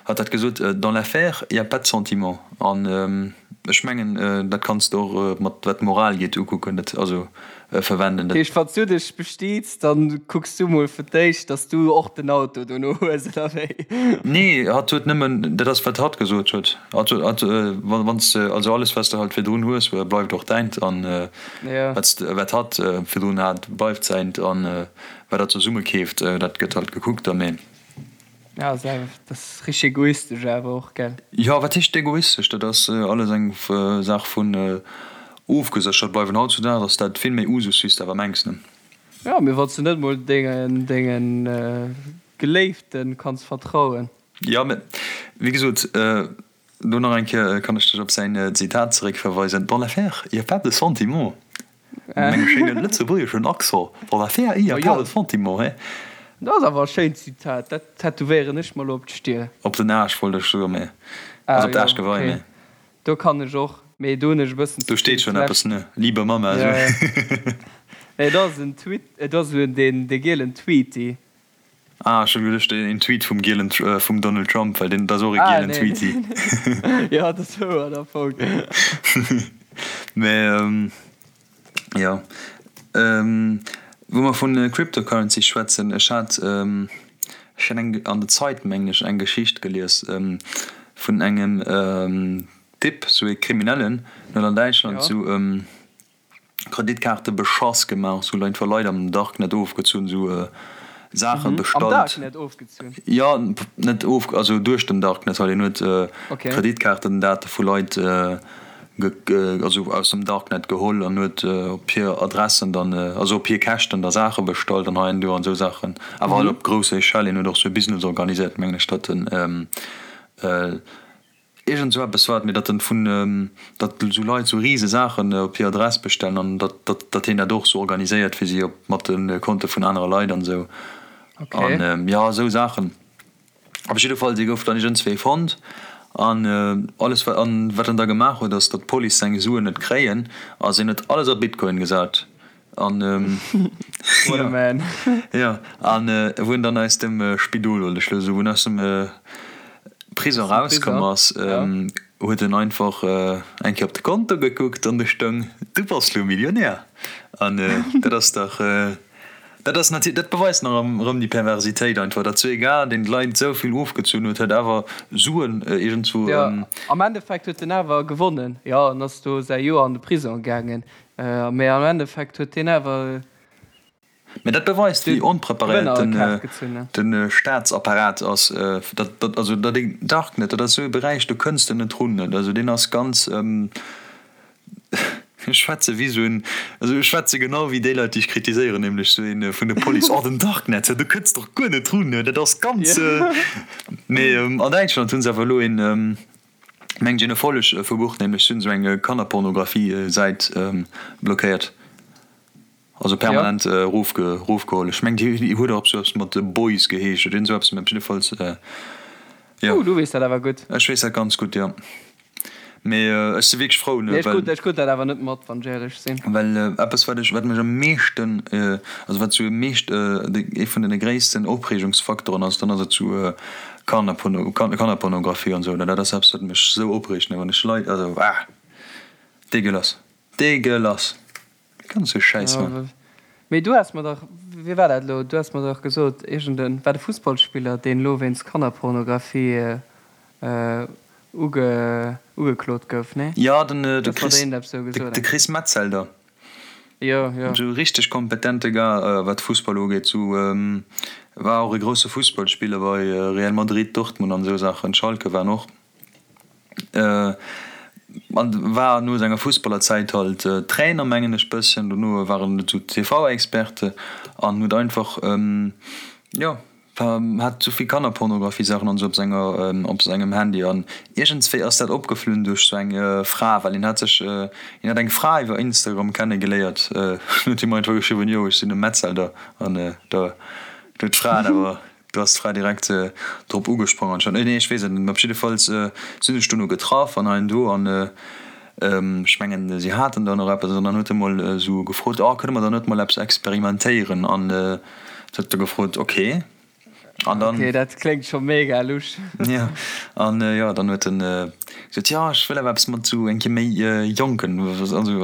Hatt hat gesot, Dans l'affaire, il y a pas de sentiment. An ech mengen, dat kanns de och mat wat d'Moral geet ukucken, dat also verwenden. Dat heescht, wann s du dech bestiets, da kucks du mol fir d'éischt, datt s du och den Auto dono hues, oder wéi? Nee, hatt huet nëmmen, dat ass wat hatt gesot huet. Wann s de, also alles wat s de halt virdrun hues, bleift och däint an wat s de, wat hatt virdrun hat, bleift säint an wat der zesumme keeft, dat gëtt halt gekuckt da mee. Ja, ass awer, dat ass richteg egoistesch awer och, gell? Jo, wat heescht egoistesch? Dat ass alles eng Saach vun ofgeséchert bleiwen. Hautzudags ass dat vill méi Usus wéi s de awer mengs, ne? Jo, mee wann s de net mol dengen, dengen Geléiften kanns vertrauen. Jo, mä wéi gesot, do nach eng Kéier kann ech dech op säin Zitat zeréckverweisen, Dans l'affaire, il y a pas de sentiment. Mat engem schéine lëtzebuergeschen Accent, Dans l'affaire, il y a pas de sentiment, he. Dat ass awer e schéint Zitat, dat tätowéieren ech mer elo op d'Stier. Op den Aarsch wollt ech soen, mä also op d'Aarschgewei, mä. Do kann ech och, mee do hunn ech e bëssen ze vill. Do steet schonn eppes, ne? Liebe Mama, esou. Nee, dat ass en Tweet, dat ass esou dee gielen Tweety. Ah, ech hunn geduecht een Tweet vum gielen, vum Donald Trump, well deen, dat ass och e Ah, gielen nee. Tweety. Jo, dat ass wouer am Fong. Mä jo, wou mer vun Cryptocurrency schwätzen, ech hat, ech hat eng, an der Zeit mengen ech, eng Geschicht gelies vun engem Typ, sou ee Kriminellen, deen huet an Däitschland sou Kreditkaarte beschass gemaach, sou einfach Leit am Darknet ofgezunn, sou Saache bestallt. Am Darknet ofgezunn? Jo, net of, also duerch den Darknet halt. Hien huet Kreditkaartendate vu Leit also aus dem Darknet geholl an huet op hir Adressen dann, also op hir Käschten da Saache bestallt an hei an do an sou Saachen. Awer halt op grousser Echelle. Hien huet och sou e Business organiséiert, mengen ech, datt en Iergend sou eppes war et, mee datt en vun, datt sou Leit sou rise Saachen op hir Adress bestellen an datt, datt, datt hien dat och sou organiséiert fir si op mat de Konte vun anere Leit an sou. An jo, sou Saachen. Op jidde Fall, si gouf dann iergendswéi fonnt an alles wat, an wat en da gemaach huet ass, datt d'Police seng Suen net kréien, ass hien huet alles a Bitcoin gesat. An What a man. Jo, an wou en dann aus dem Spidol, wollt ech elo soen, wou en aus dem Prison rauskomm ass, ja. huet en einfach eng Kéier op de Konto gekuckt an do stoung, Du bass lo Millionär. An dat ass dach, dat ass natierlech, dat beweist nach erëm déi Perversitéit einfach, datt sou ee Gars, deen d'Leit esou vill ofgezunn huet, huet awer Suen iergendzwou. Jo, am Endeffekt huet en awer gewonnen. Jo, en ass do säi Joer an de Prisong gaangen, mee am Endeffekt huet hien awer. Mä dat beweist, wéi onpreparéiert den Staatsapparat ass. Dat, also dat een Darknet, dat ass esou e Beräich, do kënns de net run. Also deen ass ganz, ech schwätze wéi esou en, also ech schwätze genau wéi déi Leit, déi ech kritiséieren, nämlech esou ee vun der Police, Oh den Darknet, do kënns de och guer net run, dat ass ganz. Mee an Däitschland hu se awer elo een, mengt een, Erfolleg verbucht, nämlech si hunn esou eng Kannerpornografie-Säit blockéiert. Also permanent erofgeholl. Ech mengen déi huet och eppes eppes mat Boys geheescht oder iergend esou eppes, mä op jiddefalls jo. Oh, du weess dat awer gutt. Ech weess dat ganz gutt, jo. Mee ech si wierklech frou, ne, well. Ech krut dat awer net mat, wann ech éierlech sinn. Well eppes wat ech, wat mech am meeschten, also wat sou am meescht, ee vun den gréissten Opreegungsfaktoren ass, dann ass et sou Kannerporno, Kannerpornografie an esou, dat ass eppes wat mech sou opreegt, ne, wann ech Leit, also ah, dégueulasse, dégueulasse. Ganz sou Schäiss man. Mee du has mer dach, wéi war dat elo, du has mer dach gesot, iergend en, war de Fussballspiller, deen elo wéinst Kannerpornografie uge, ugeklot gouf, nee? Jo, den, de Chris, de Chris Metzelder. Jo, jo. Sou richteg kompetente Gars, wat Fussball ugeet. Sou, war och e grousse Fussballspiller bei Real Madrid, Dortmund an esou Saachen, Schalke war en och. An war no senger Fussballerzäit halt Trainer mengen ech bësschen, dono war en esou TV-Experte an huet einfach jo hat esou vill Kannerpornografie-Saachen an esou op senger op sengem Handy an iergendswéi ass dat opgeflunn duerch sou eng Fra, well hien hat sech hien hat eng Fra iwwer Instagram kenne geléiert, huet him einfach geschriwwen, jo ech sinn e Metzelder an da huet d'Fra awer Do ass d'Fra direkt drop ugesprong anscheinend. Nee, ech weess et net. Mä op jiddefalls sinn ech dono getraff an hei an do an ech mengen, si haten dann och eppes an dann huet e mol esou gefrot, Oh, kënne mer dann net mol eppes experimentéieren? An se huet da gefrot, Ok. An dann. Ok, dat kléngt scho mega lusch. Jo, an jo, dann huet en gesot, Jo, ech wëll awer eppes mat esou eng Kéier méi Jonken, also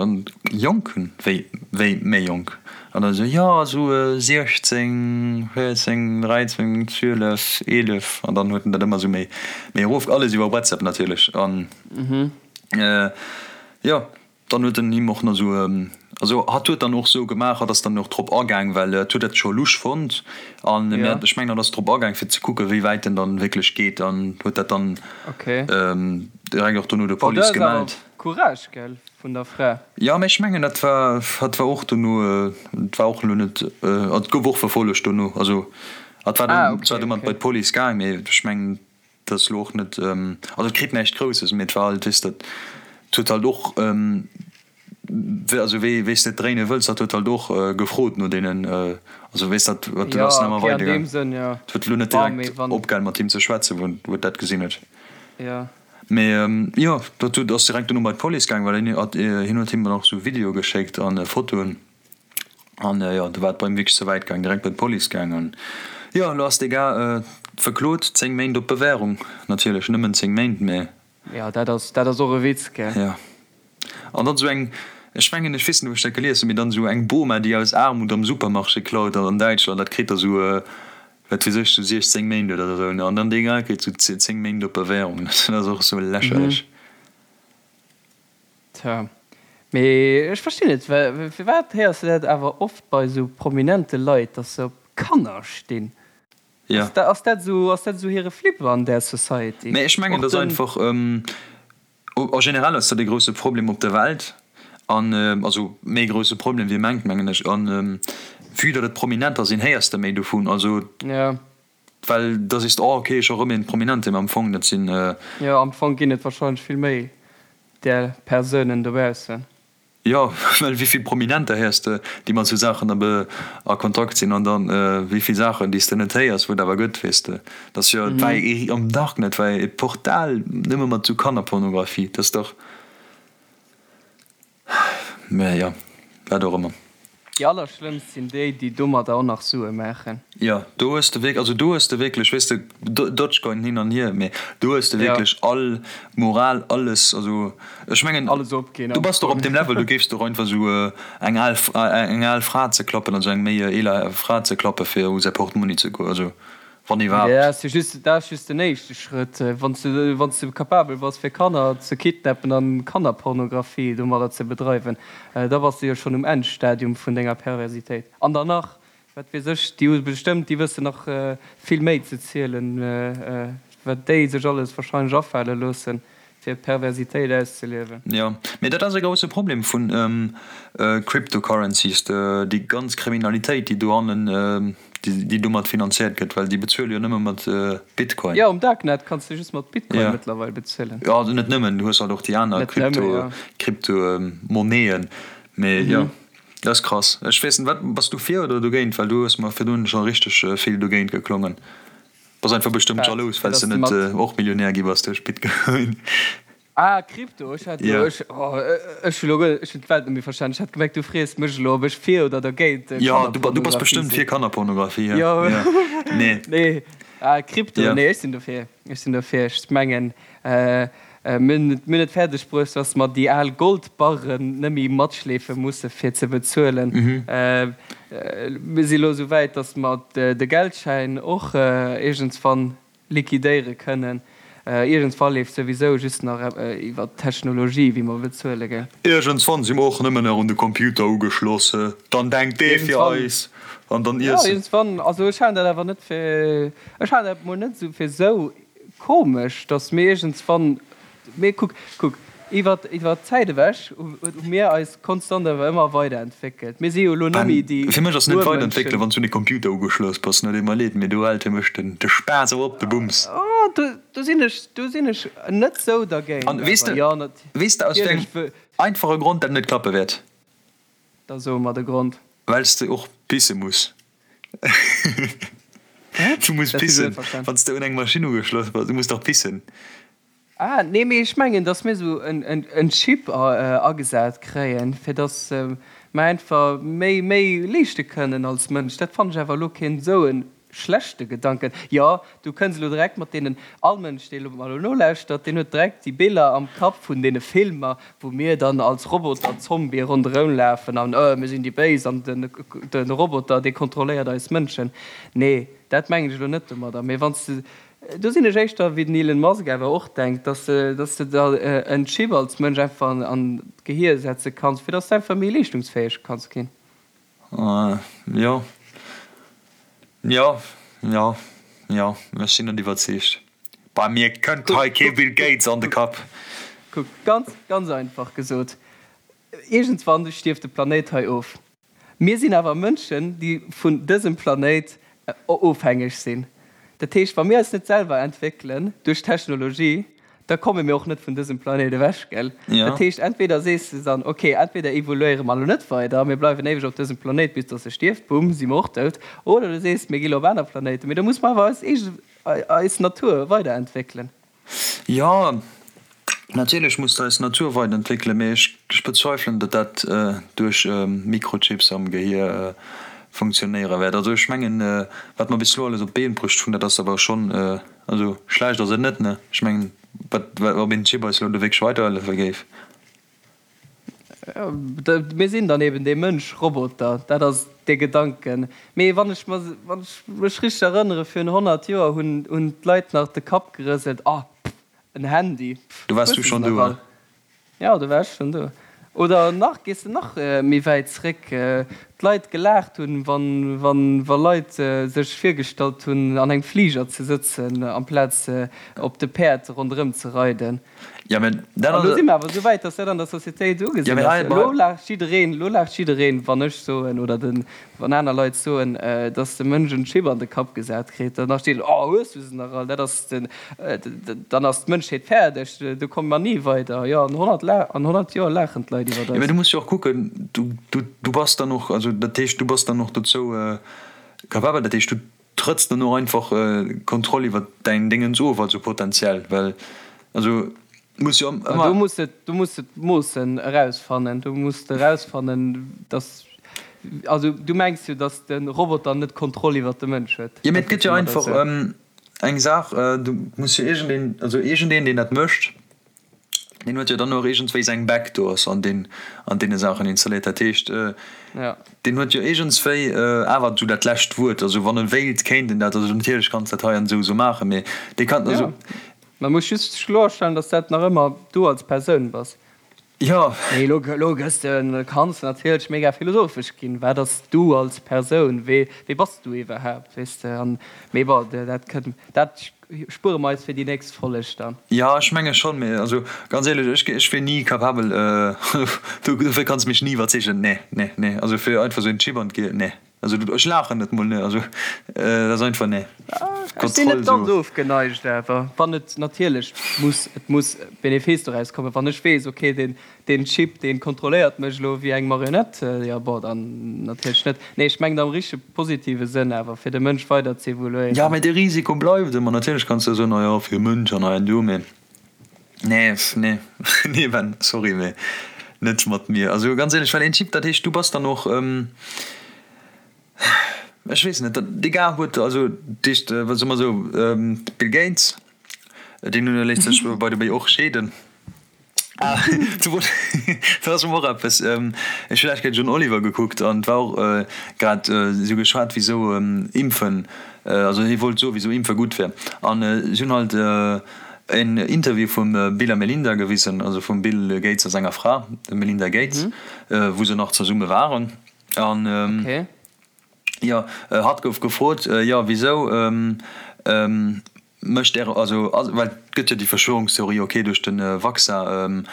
Jonken? Wéi, wéi méi jonk? An dann esou, jo, esou 16, 14, 13, 12, 11. An dann huet en dat ëmmer esou méi, méi erof, alles iwwer WhatsApp natierlech. An jo, dann huet en him och nach esou, also hatt huet dann och esou gemaach, hatt ass dann och drop agaang, well hatt huet dat scho lusch fonnt. An mir, ech mengen, hatt ass drop agaang, fir ze kucken, wéi wäit en dann wierklech geet an huet dat dann direkt och dono der Police gemellt. Courage, gell, vun der Fra. Jo, mä ech mengen, dat war, hat war och dono, et war och elo net, et gouf och verfollegt dono, also hat war dann zwar domat bei d'Police gaang, mee ech mengen, dat ass elo och net, also et kritt näischt Grousses, mee et war halt, weess de, et huet halt och, also wéi wéi s de et dréine wëlls, dat huet halt och gefrot no deenen, also weess dat, dat ass nach ëmmer weidergaang, et huet elo net direkt opgehal mat him ze schwätzen, wou et dat gesinn huet. Mee jo, dat huet ass direkt dono bei d'Police gaang, well hien hat hien huet him dann och sou Videoe geschéckt an Fotoen an jo, do war et bei him wierklech ze wäit gaang, direkt bei d'Police gaang an jo, elo ass dee Gars verklot, 10 Méint op Bewährung, natierlech nëmmen 10 Méint, mee. Jo, dat ass dat ass och e Witz, gell? Jo, an dann sou eng, ech mengen, ech weess net, wou ech dat gelies hunn, mee dann sou eng Boma, déi aus Aarmut am Supermarché klaut an Däitschland, dat kritt da sou Wat weess ech, sou 16 Méint oder esou, ne? An dann dee Gars kritt sou 10 Méint op Bewährung. Dat ass och sou lächerlech. Tja, mee ech verstinn net, firwat héiers de dat awer oft bei sou prominente Leit, dass se op Kanner stinn? Jo. Ass dat esou, ass dat esou hire Flip an där Society? Mee ech mengen, dat ass einfach. A generell ass dat e grousse Problem op der Welt, an also méi grousse Problem wéi ee mengt, mengen ech. An vue datt et Prominenter sinn, héiers de méi dovun. Also well da sees de, oh okay, scho rëm een Prominente, mä am Fong dat sinn. Jo, am Fong ginn et wahrscheinlech vill méi där Persounen dobaussen. Jo, well wéi vill Prominenter héiers de, déi mat sou Saachen a Kontakt sinn, an dann wéi vill Saachen, déi s de net héiers, wou et awer gëtt, weess de. Dat ass jo, et war ee am Darknet war ee Portal nëmme mat sou Kannerpornografie, dat ass dach, mä jo, wat och ëmmer. Déi allerschlëmmst sinn déi, déi domadder och nach Sue maachen. Jo, do hues de wierk, also do hues de wierklech, weess de, Dogecoin hin an hier, mee do hues de wierklech all Moral, alles, also ech mengen, Alles opginn du am bass doch op Fong. deem Level, do géifs de och einfach esou eng al, eng al Fra ze klappen, also eng méi eeler Fra ze klappe fir u säi Portmonni ze goen, also wann iwwerhaapt. Dat ass jo just, dat ass just den éischte Schrëtt. Wann s de, wann s de capabel bass fir Kanner ze kidnappen an Kannerpornografie domadder ze bedreiwen, da bass de jo schonn um Endstadium vun denger Perversitéit. An dann nach, wat weess ech, déi hu bestëmmt, déi wëssen nach vill méi ze zielen, wat déi sech alles wahrscheinlech afale loossen, fir Perversitéit auszeliewen. Jo, mee dat ass e grousse Problem vun Cryptocurrencies, déi ganz Kriminalitéit, déi dohannen, déi domat finanziert gëtt, well déi bezuele jo nëmme mat Bitcoin. Jo, um Darknet kanns de just mat Bitcoin mëttlerweil bezuelen. Jo, also net nëmmen, du hues halt och déi aner Crypto, Crypto-Monnaien, mee jo, dat ass krass. Ech weess net, wat, bass du fir oder dogéint? Well du hues mer virdrun scho richteg vill dogéint geklongen. Bass einfach bestëmmt jalous, well s de net och Millionär gi bass duerch Bitcoin. Ah, Krypto, ech hat elo, ech, oh, ech hu elo guer, ech hunn d'Welt net méi verstanen. Ech hat gemengt, du frees mech elo, ob ech fir oder dergéint Jo, du, du bass Kannerpornografie bestëmmt sinn. fir Kannerpornografie, Jo, jo. Nee. nee, ah, Krypto, Jo. nee, ech sinn dofir, ech sinn dofir. Ech mengen, Mir hunn et fäerdeg bruecht, dass mer déi al Goldbarren net méi matschleefe musse fir ze bezuelen. Mir si elo esou wäit, dass mer de Geldschäin och iergendswann liquidéiere kënnen. Iergendswa leeft souwisou just nach iwwer d'Technologie, wéi mer bezuele, gell? Iergendswann si mer och nëmmen nach un de Computer ugeschloss. Dann denkt dee fir eis an dann iesse. Jo, iergendswann. Also ech halen dat awer net fir, ech halen dat mol net esou fir esou Komesch, dass mir iergendswann, mee kuck, kuck, iwwer, iwwer d'Zäit ewech hu mir eis konstant awer ëmmer weiderentwéckelt. Mir si jo elo net méi déi Fir mech ass net weiderentwéckelen, Urmënschen. wann s du un de Computer ugeschloss bass. No, deet mer leed, mee do hält fir mech den, de Spaass awer op, de Bums. Oh, do, do sinn ech, do sinn ech net sou dergéint An weess awer. de, Jo, weess de aus wéi natierlech. engem einfache Grond dat net klappe wäert? Da so mer de Grond. Well s de och pisse muss. Wat? Du muss Dat hunn ech net pissen, verstan. wann s de un eng Maschinn ugeschloss bass. Du muss dach pissen. Ah, nee, mee ech mengen, dass mir esou en Chip agesat kréien, fir dass mer einfach méi, méi leeschte kënnen als Mënsch. Dat fannen ech awer elo keen esou e schlechte Gedanken. Jo, du kënns elo direkt mat deenen, all Mënsch, dee elo mer elo nolauschtert, deen huet direkt déi Biller am Kapp vun deene Filmer, wou mir dann als Roboter-Zombië ronderëm lafen an, oh, mir sinn déi Béis an de Roboter, dee kontrolléiert eis Mënschen. Nee, dat mengen ech elo net domadder. Mee wann s de, do sinn ech éischter wéi den Elon Musk awer och denkt, dass de, dass de der en Chip als Mënsch einfach an d'Gehier setze kanns, fir dass de einfach méi leeschtungsfäeg kanns ginn. Jo, jo, jo, jo, ech sinn net iwwerzeegt. Bei mir kënnt hei kee Bill Gates an de Kapp. Kuck, ganz, ganz einfach gesot, iergendswann stierft de Planéit hei of. Mir sinn awer Mënschen, déi vun dësem Planéit ofhängeg sinn. Dat heescht, wa mir eis net selwer entwéckelen duerch Technologie, da komme mir och net vun dësem Planéit ewech, gell? Ja. Dat heescht, entweder sees de dann, okay, entweder evoluéiere mer elo net weider, mir bleiwen éiweg op dësem Planéit, bis dass e stierft, bumm, si mer och dout, oder du sees, mir gi lo op aner Planéiten, mee da muss mer awer eis eege, eis Natur weiderentwéckelen. Jo, natierlech muss de eis Natur weiderentwéckelen, mee ech, ech bezweifelen, datt dat duerch Mikrochips am Gehier funktionéiere wäert. Also ech mengen, wat mer bis elo alles op d'Been bruecht hunn, dat ass awer schonn, Also schlecht ass et net, ne? Ech mengen, wat, ob een Chip eis elo do wierklech weiderhëllefe géif. Mir sinn dann eben dee Mënsch-Roboter, dat ass dee Gedanken. Mee wann ech mer, wann ech mech richteg erënnere, virun 100 Joer hunn, hunn d'Leit nach de Kapp gerëselt, Ah, pff, en Handy, pff, Do waars hues du de se schonn nach do, all? Jo, do war ech schonn do. Oder nach, gees de nach méi wäit zréck, d'Leit gelaacht hunn, wann, wann, wa Leit sech virgestallt hunn, an engem Fliger ze sëtzen, amplaz op de Päerd ronderëm ze reiden. Jo, mä dat An ass. elo si mer awer esou wäit, dass dat an der Societéit Jo, ugesinn mä ass. hei, Elo laacht jiddereen, elo laacht jiddereen, wann ech soen oder den, Wann aner Leit soen, dass de Mënsch en Chip an de Kapp gesat kritt, dann steet, Oh, hues du se nach all? Dat ass den, dann ass d'Mënschheet fäerdeg, do komme mer ni weider. Jo, an 100, an 100 Joer laachen d'Leit iwwert Jo, mä eis. du muss jo och kucken, du, du, du bass dann och, also dat heescht, du bass dann och dozou capabel, dat heescht, du trëtts dann och einfach d'Kontroll iwwert däin Déngens of, also potenziell, well, also muss jo Ma ëmmer. do muss de, do muss de d'Moossen erausfannen. Do muss de erausfannen, dass. Also du mengs jo, datt de Roboter net d'Kontroll iwwert de Mënsch huet? Jo, mee et gëtt jo einfach eng Saach, du muss jo iergendeen, also iergendeen, deen dat mécht, deen huet jo dann och iergendswéi seng Backdoors an deen, an deene Saachen installéiert. Dat heescht, deen huet jo iergendswéi awer esou dat lescht Wuert. Also wann e wéilt, kéint en dat, also natierlech kanns dat hei an esou esou maachen, mee dee kann, also. Man muss just kloerstellen, dass dat nach ëmmer du als Persoun bass. Jo. Mee elo, elo gëss de, kanns de natierlech mega philosophesch ginn. Wat ass du als Persoun? Wee, wee bass du iwwerhaapt, weess de? An, mee bon, dat kënnt, dat spuere mer eis fir déi nächst Folleg dann. Jo, ech menge schonn, mee also ganz éierlech, ech, ech wier ni capabel, do, dofir kanns de mech ni iwwerzeegen. Nee, nee, nee, also fir einfach esou en Chip an d'Gehir, nee. Also ech laachen net mol, ne, also dat ass einfach ne. Ech sinn net ganz ofgeneigt awer wann et natierlech muss, et muss Benefice doraus kommen. Wann ech weess, ok deen deen Chip deen kontrolléiert mech elo wéi eng Marionette, jo bon dann natierlech net. Nee ech mengen am richtege positive Sënn awer fir de Mënsch weider z'evoluéieren. Jo mee de Risiko bleift ëmmer. Natierlech kanns de soen, oh jo fir de Mënsch an hei an do, mee nee nee nee Ben, sorry mee net mat mir. Also ganz éierlech, well een Chip dat heescht du bass dann och, Ech weess net, dee Gars huet, also dat heescht, soe mer esou, Bill Gates, deen léisst sech by the way och scheeden. Ah, do ass och eppes, ech hu lescht Kéier John Oliver gekuckt an et war och grad esou geschwat, wisou Impfen, also hie wollt soe wisou Impfe gutt wär an si hunn halt en Interview vum Bill a Melinda gewisen, also vum Bill Gates a senger Fra, dem Melinda Gates, wou se nach zesumme waren. An jo, hatt gouf gefrot, jo wisou mécht Äre, also well et gëtt jo déi Verschwörungstheorie, ok duerch de Vaccin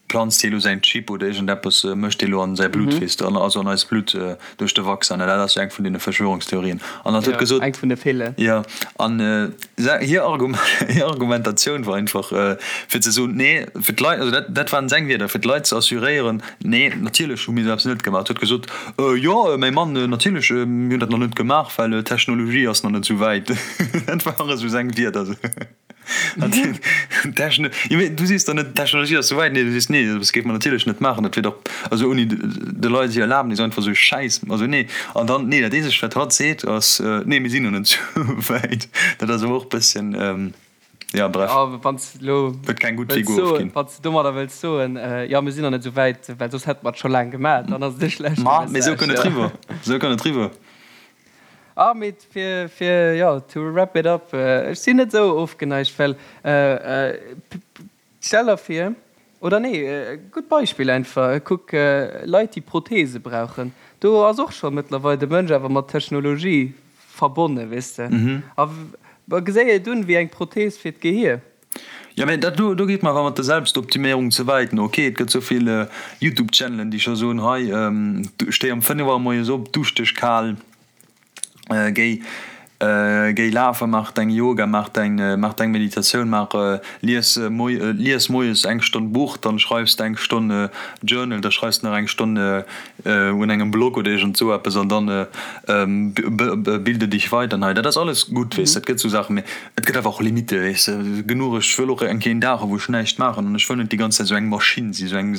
planzt hie lo säin Chip oder iergendeppes mécht hie lo an säi Blutt, weess de, also an eist Blutt duerch de Vaccin, dat ass jo eng vun deene Verschwörungstheorien. An hatt huet gesot, eng vun de villen. Jo, an hir Argumentatioun war einfach fir ze soen, nee, fir d'Leit, also dat dat waren seng Wierder, fir d'Leit ze assuréieren, nee, natierlech hu mir esou eppes net gemaach. Huet gesot, jo, mäi Mann, natierlech, mir hunn dat nach net gemaach, well d'Technologie ass nach net esou wäit. Dat waren esou seng Wierder. Techno, jo mee du sees der net d'Technologie ass souwäit, nee du sees nee dat géife mer natierlech net maachen, dat wier dach also ouni de Leit hir Erlaabnis einfach esou Schäiss, also nee. An dann nee dat eenzegt wat hatt seet ass nee mir sinn nach net souwäit. Dat ass awer och bësschen ja bref. Jo wann s de elo Huet keng gutt wëlls Figur soen, ofginn. wann s de domadder wëlls soen jo mir sinn nach net souwäit, well soss hätte mer et scho laang gemaach, dann ass et e schlechte Ma mee esou Message, kënnt et jo. riwwer, esou kënnt et riwwer. Ah mee fir fir jo to wrap it up, ech sinn net esou ofgeneigt, well stell der vir, oder nee e gutt Beispill einfach, kuck Leit déi Prothese brauchen, do ass och scho mëttlerweil de Mënsch awer mat Technologie verbonne weess de, a geséi et un wéi eng Prothese fir d'Gehier. Jo, mä dat do, do geet mer awer mat der Selbstoptiméierung ze wäit. No, ok, et gëtt esou vill Youtube-Channelen, déi scho soen, hei, stéi am 5 Auer moies op, dusch dech kal, géi, géi lafen, maach deng Yoga, maach deng, maach deng Meditatioun, maach, lies moi, lies moies eng Stonn Buch, dann schreifs de eng Stonn Journal, da schreifs de nach eng Stonn un engem Blog oder iergend esou eppes an dann bilde dich weiter. An hei, dat ass alles gutt, weess de, et gëtt esou Saachen, mä Et gëtt awer och Limitte, weess de, genuch. Ech wëll och eng Kéier een Dag hu wou ech näischt maachen an ech wëll net déi ganz Zäit esou eng Maschinn sinn, esou eng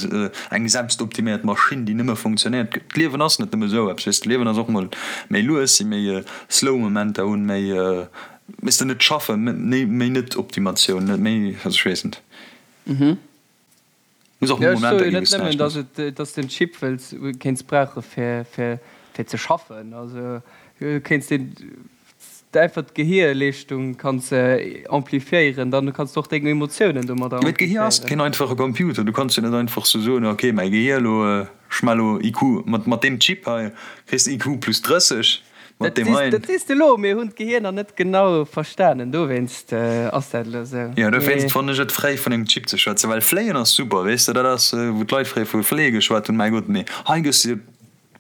eng selbstoptiméiert Maschinn, déi nëmme funktionéiert. D'Liewen ass net nëmme esou eppes, weess de. D'Liewen ass och mol méi lues sinn, méi slow Momenter hunn, méi, weess de, net schaffen, méi méi net Optimatioun, net méi, also ech weess net. Muss och mol Momenter ginn, wou s näischt méchs. Ech soe jo net nëmmen, dass de en Chip wëlls, kéints brauche fir fir ze schaffen. Also kéints deen einfach d'Gehierleeschtung kanns amplifiéieren, dann kanns de och deng Emotiounen domadder Mee d'Gehier ass amplifiéieren. keen einfache Computer. Du kanns jo net einfach sou soen, ok mäi Gehier elo, ech maache elo IQ mat mat deem Chip hei kriss de IQ plus 30, mat Dat deem sees heien. dat sees de elo, mir hunn d'Gehier nach net genau verstanen, dowéinst ass dat elo sou. Jo dowéinst fannen ech et fréi vun engem Chip ze schwätzen, well fléien ass super, weess de, dat ass wou d'Leit fréier vu fléie geschwat hunn, mäi Gott, mee hei gëss de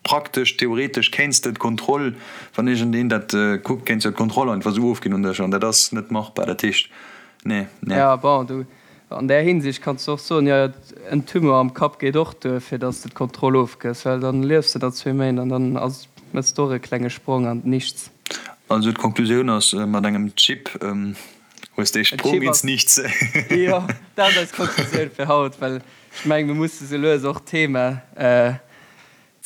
Praktesch, theoretesch kéints de d'Kontroll, wann iergendeen dat kuckt, kéints de d'Kontroll einfach esou ofginn un dech an dat ass net machbar. Dat heescht, nee, nee. Jo, bon, du, an där Hinsicht kanns de och soen, jo, en Tumeur am Kapp geet och duer, fir datt s de d'Kontroll ofgëss, well dann liefs de der zwee Méint an dann ass, méchs de och e klenge Sprong an d'Nichts. Also d'Konklusioun ass, mat engem Chip hues de ee Sprong ins Nichts. Jo, dat ass eis Konklusioun fir haut, well ech mengen, mir musse sou lues och d'Thema.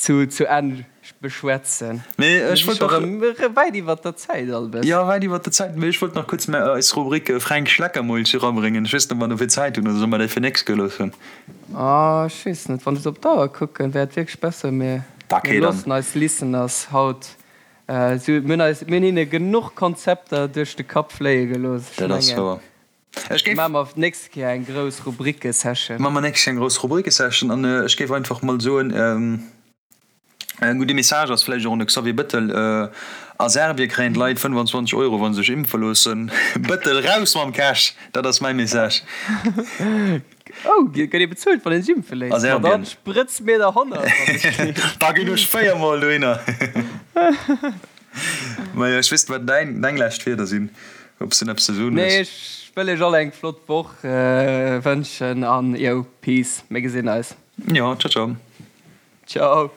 Zu zu Enn beschwätzen. Mee ech wollt nach. Erëm wäit iwwert der Zäit all bëssen. Jo, wäit iwwert der Zäit. Mee ech wollt nach kuerz mä eis Rubrik Fränk Schleckermulch erabréngen. Ech weess net, ob mer dofir Zäit hunn oder solle mer déi fir nächst Kéier loossen? Ah, ech weess net. Wann ech op d'Auer kucken, wär et wierklech besser, mir Okay, dann. loossen eis Listeners haut esou. Mir hunn eis, mir hunn hinne genuch Konzepter duerch de Kapp fléie gelooss. Ech Dat ass mengen. wouer. Ech géif. Maache mer d'nächst Kéier eng grouss Rubrike-Session. Maache mer nächst Kéier eng grouss Rubrike-Session an ech géif einfach mol soen, e gudde Message ass vläicht och un de Xavier Bëttel, A Serbie kréien d'Leit 25 Euro, wa se sech impfe loossen. Bëttel, raus mam Cash! Dat ass mäi Message. Oh, gëtt ee bezuelt, wann ee sech impfe léisst? A Serbien. Ma dann sprëtz mir der 100, wann ech kritt. Da ginn ech véiermol dohinner. Majo, ech weess net, wat däin, deng lescht Wierder sinn, ob s de eppes ze soen Nee, hues. ech wëll iech all eng flott Woch wënschen an yo, peace, mir gesinn eis. Jo, ciao, ciao. Ciao.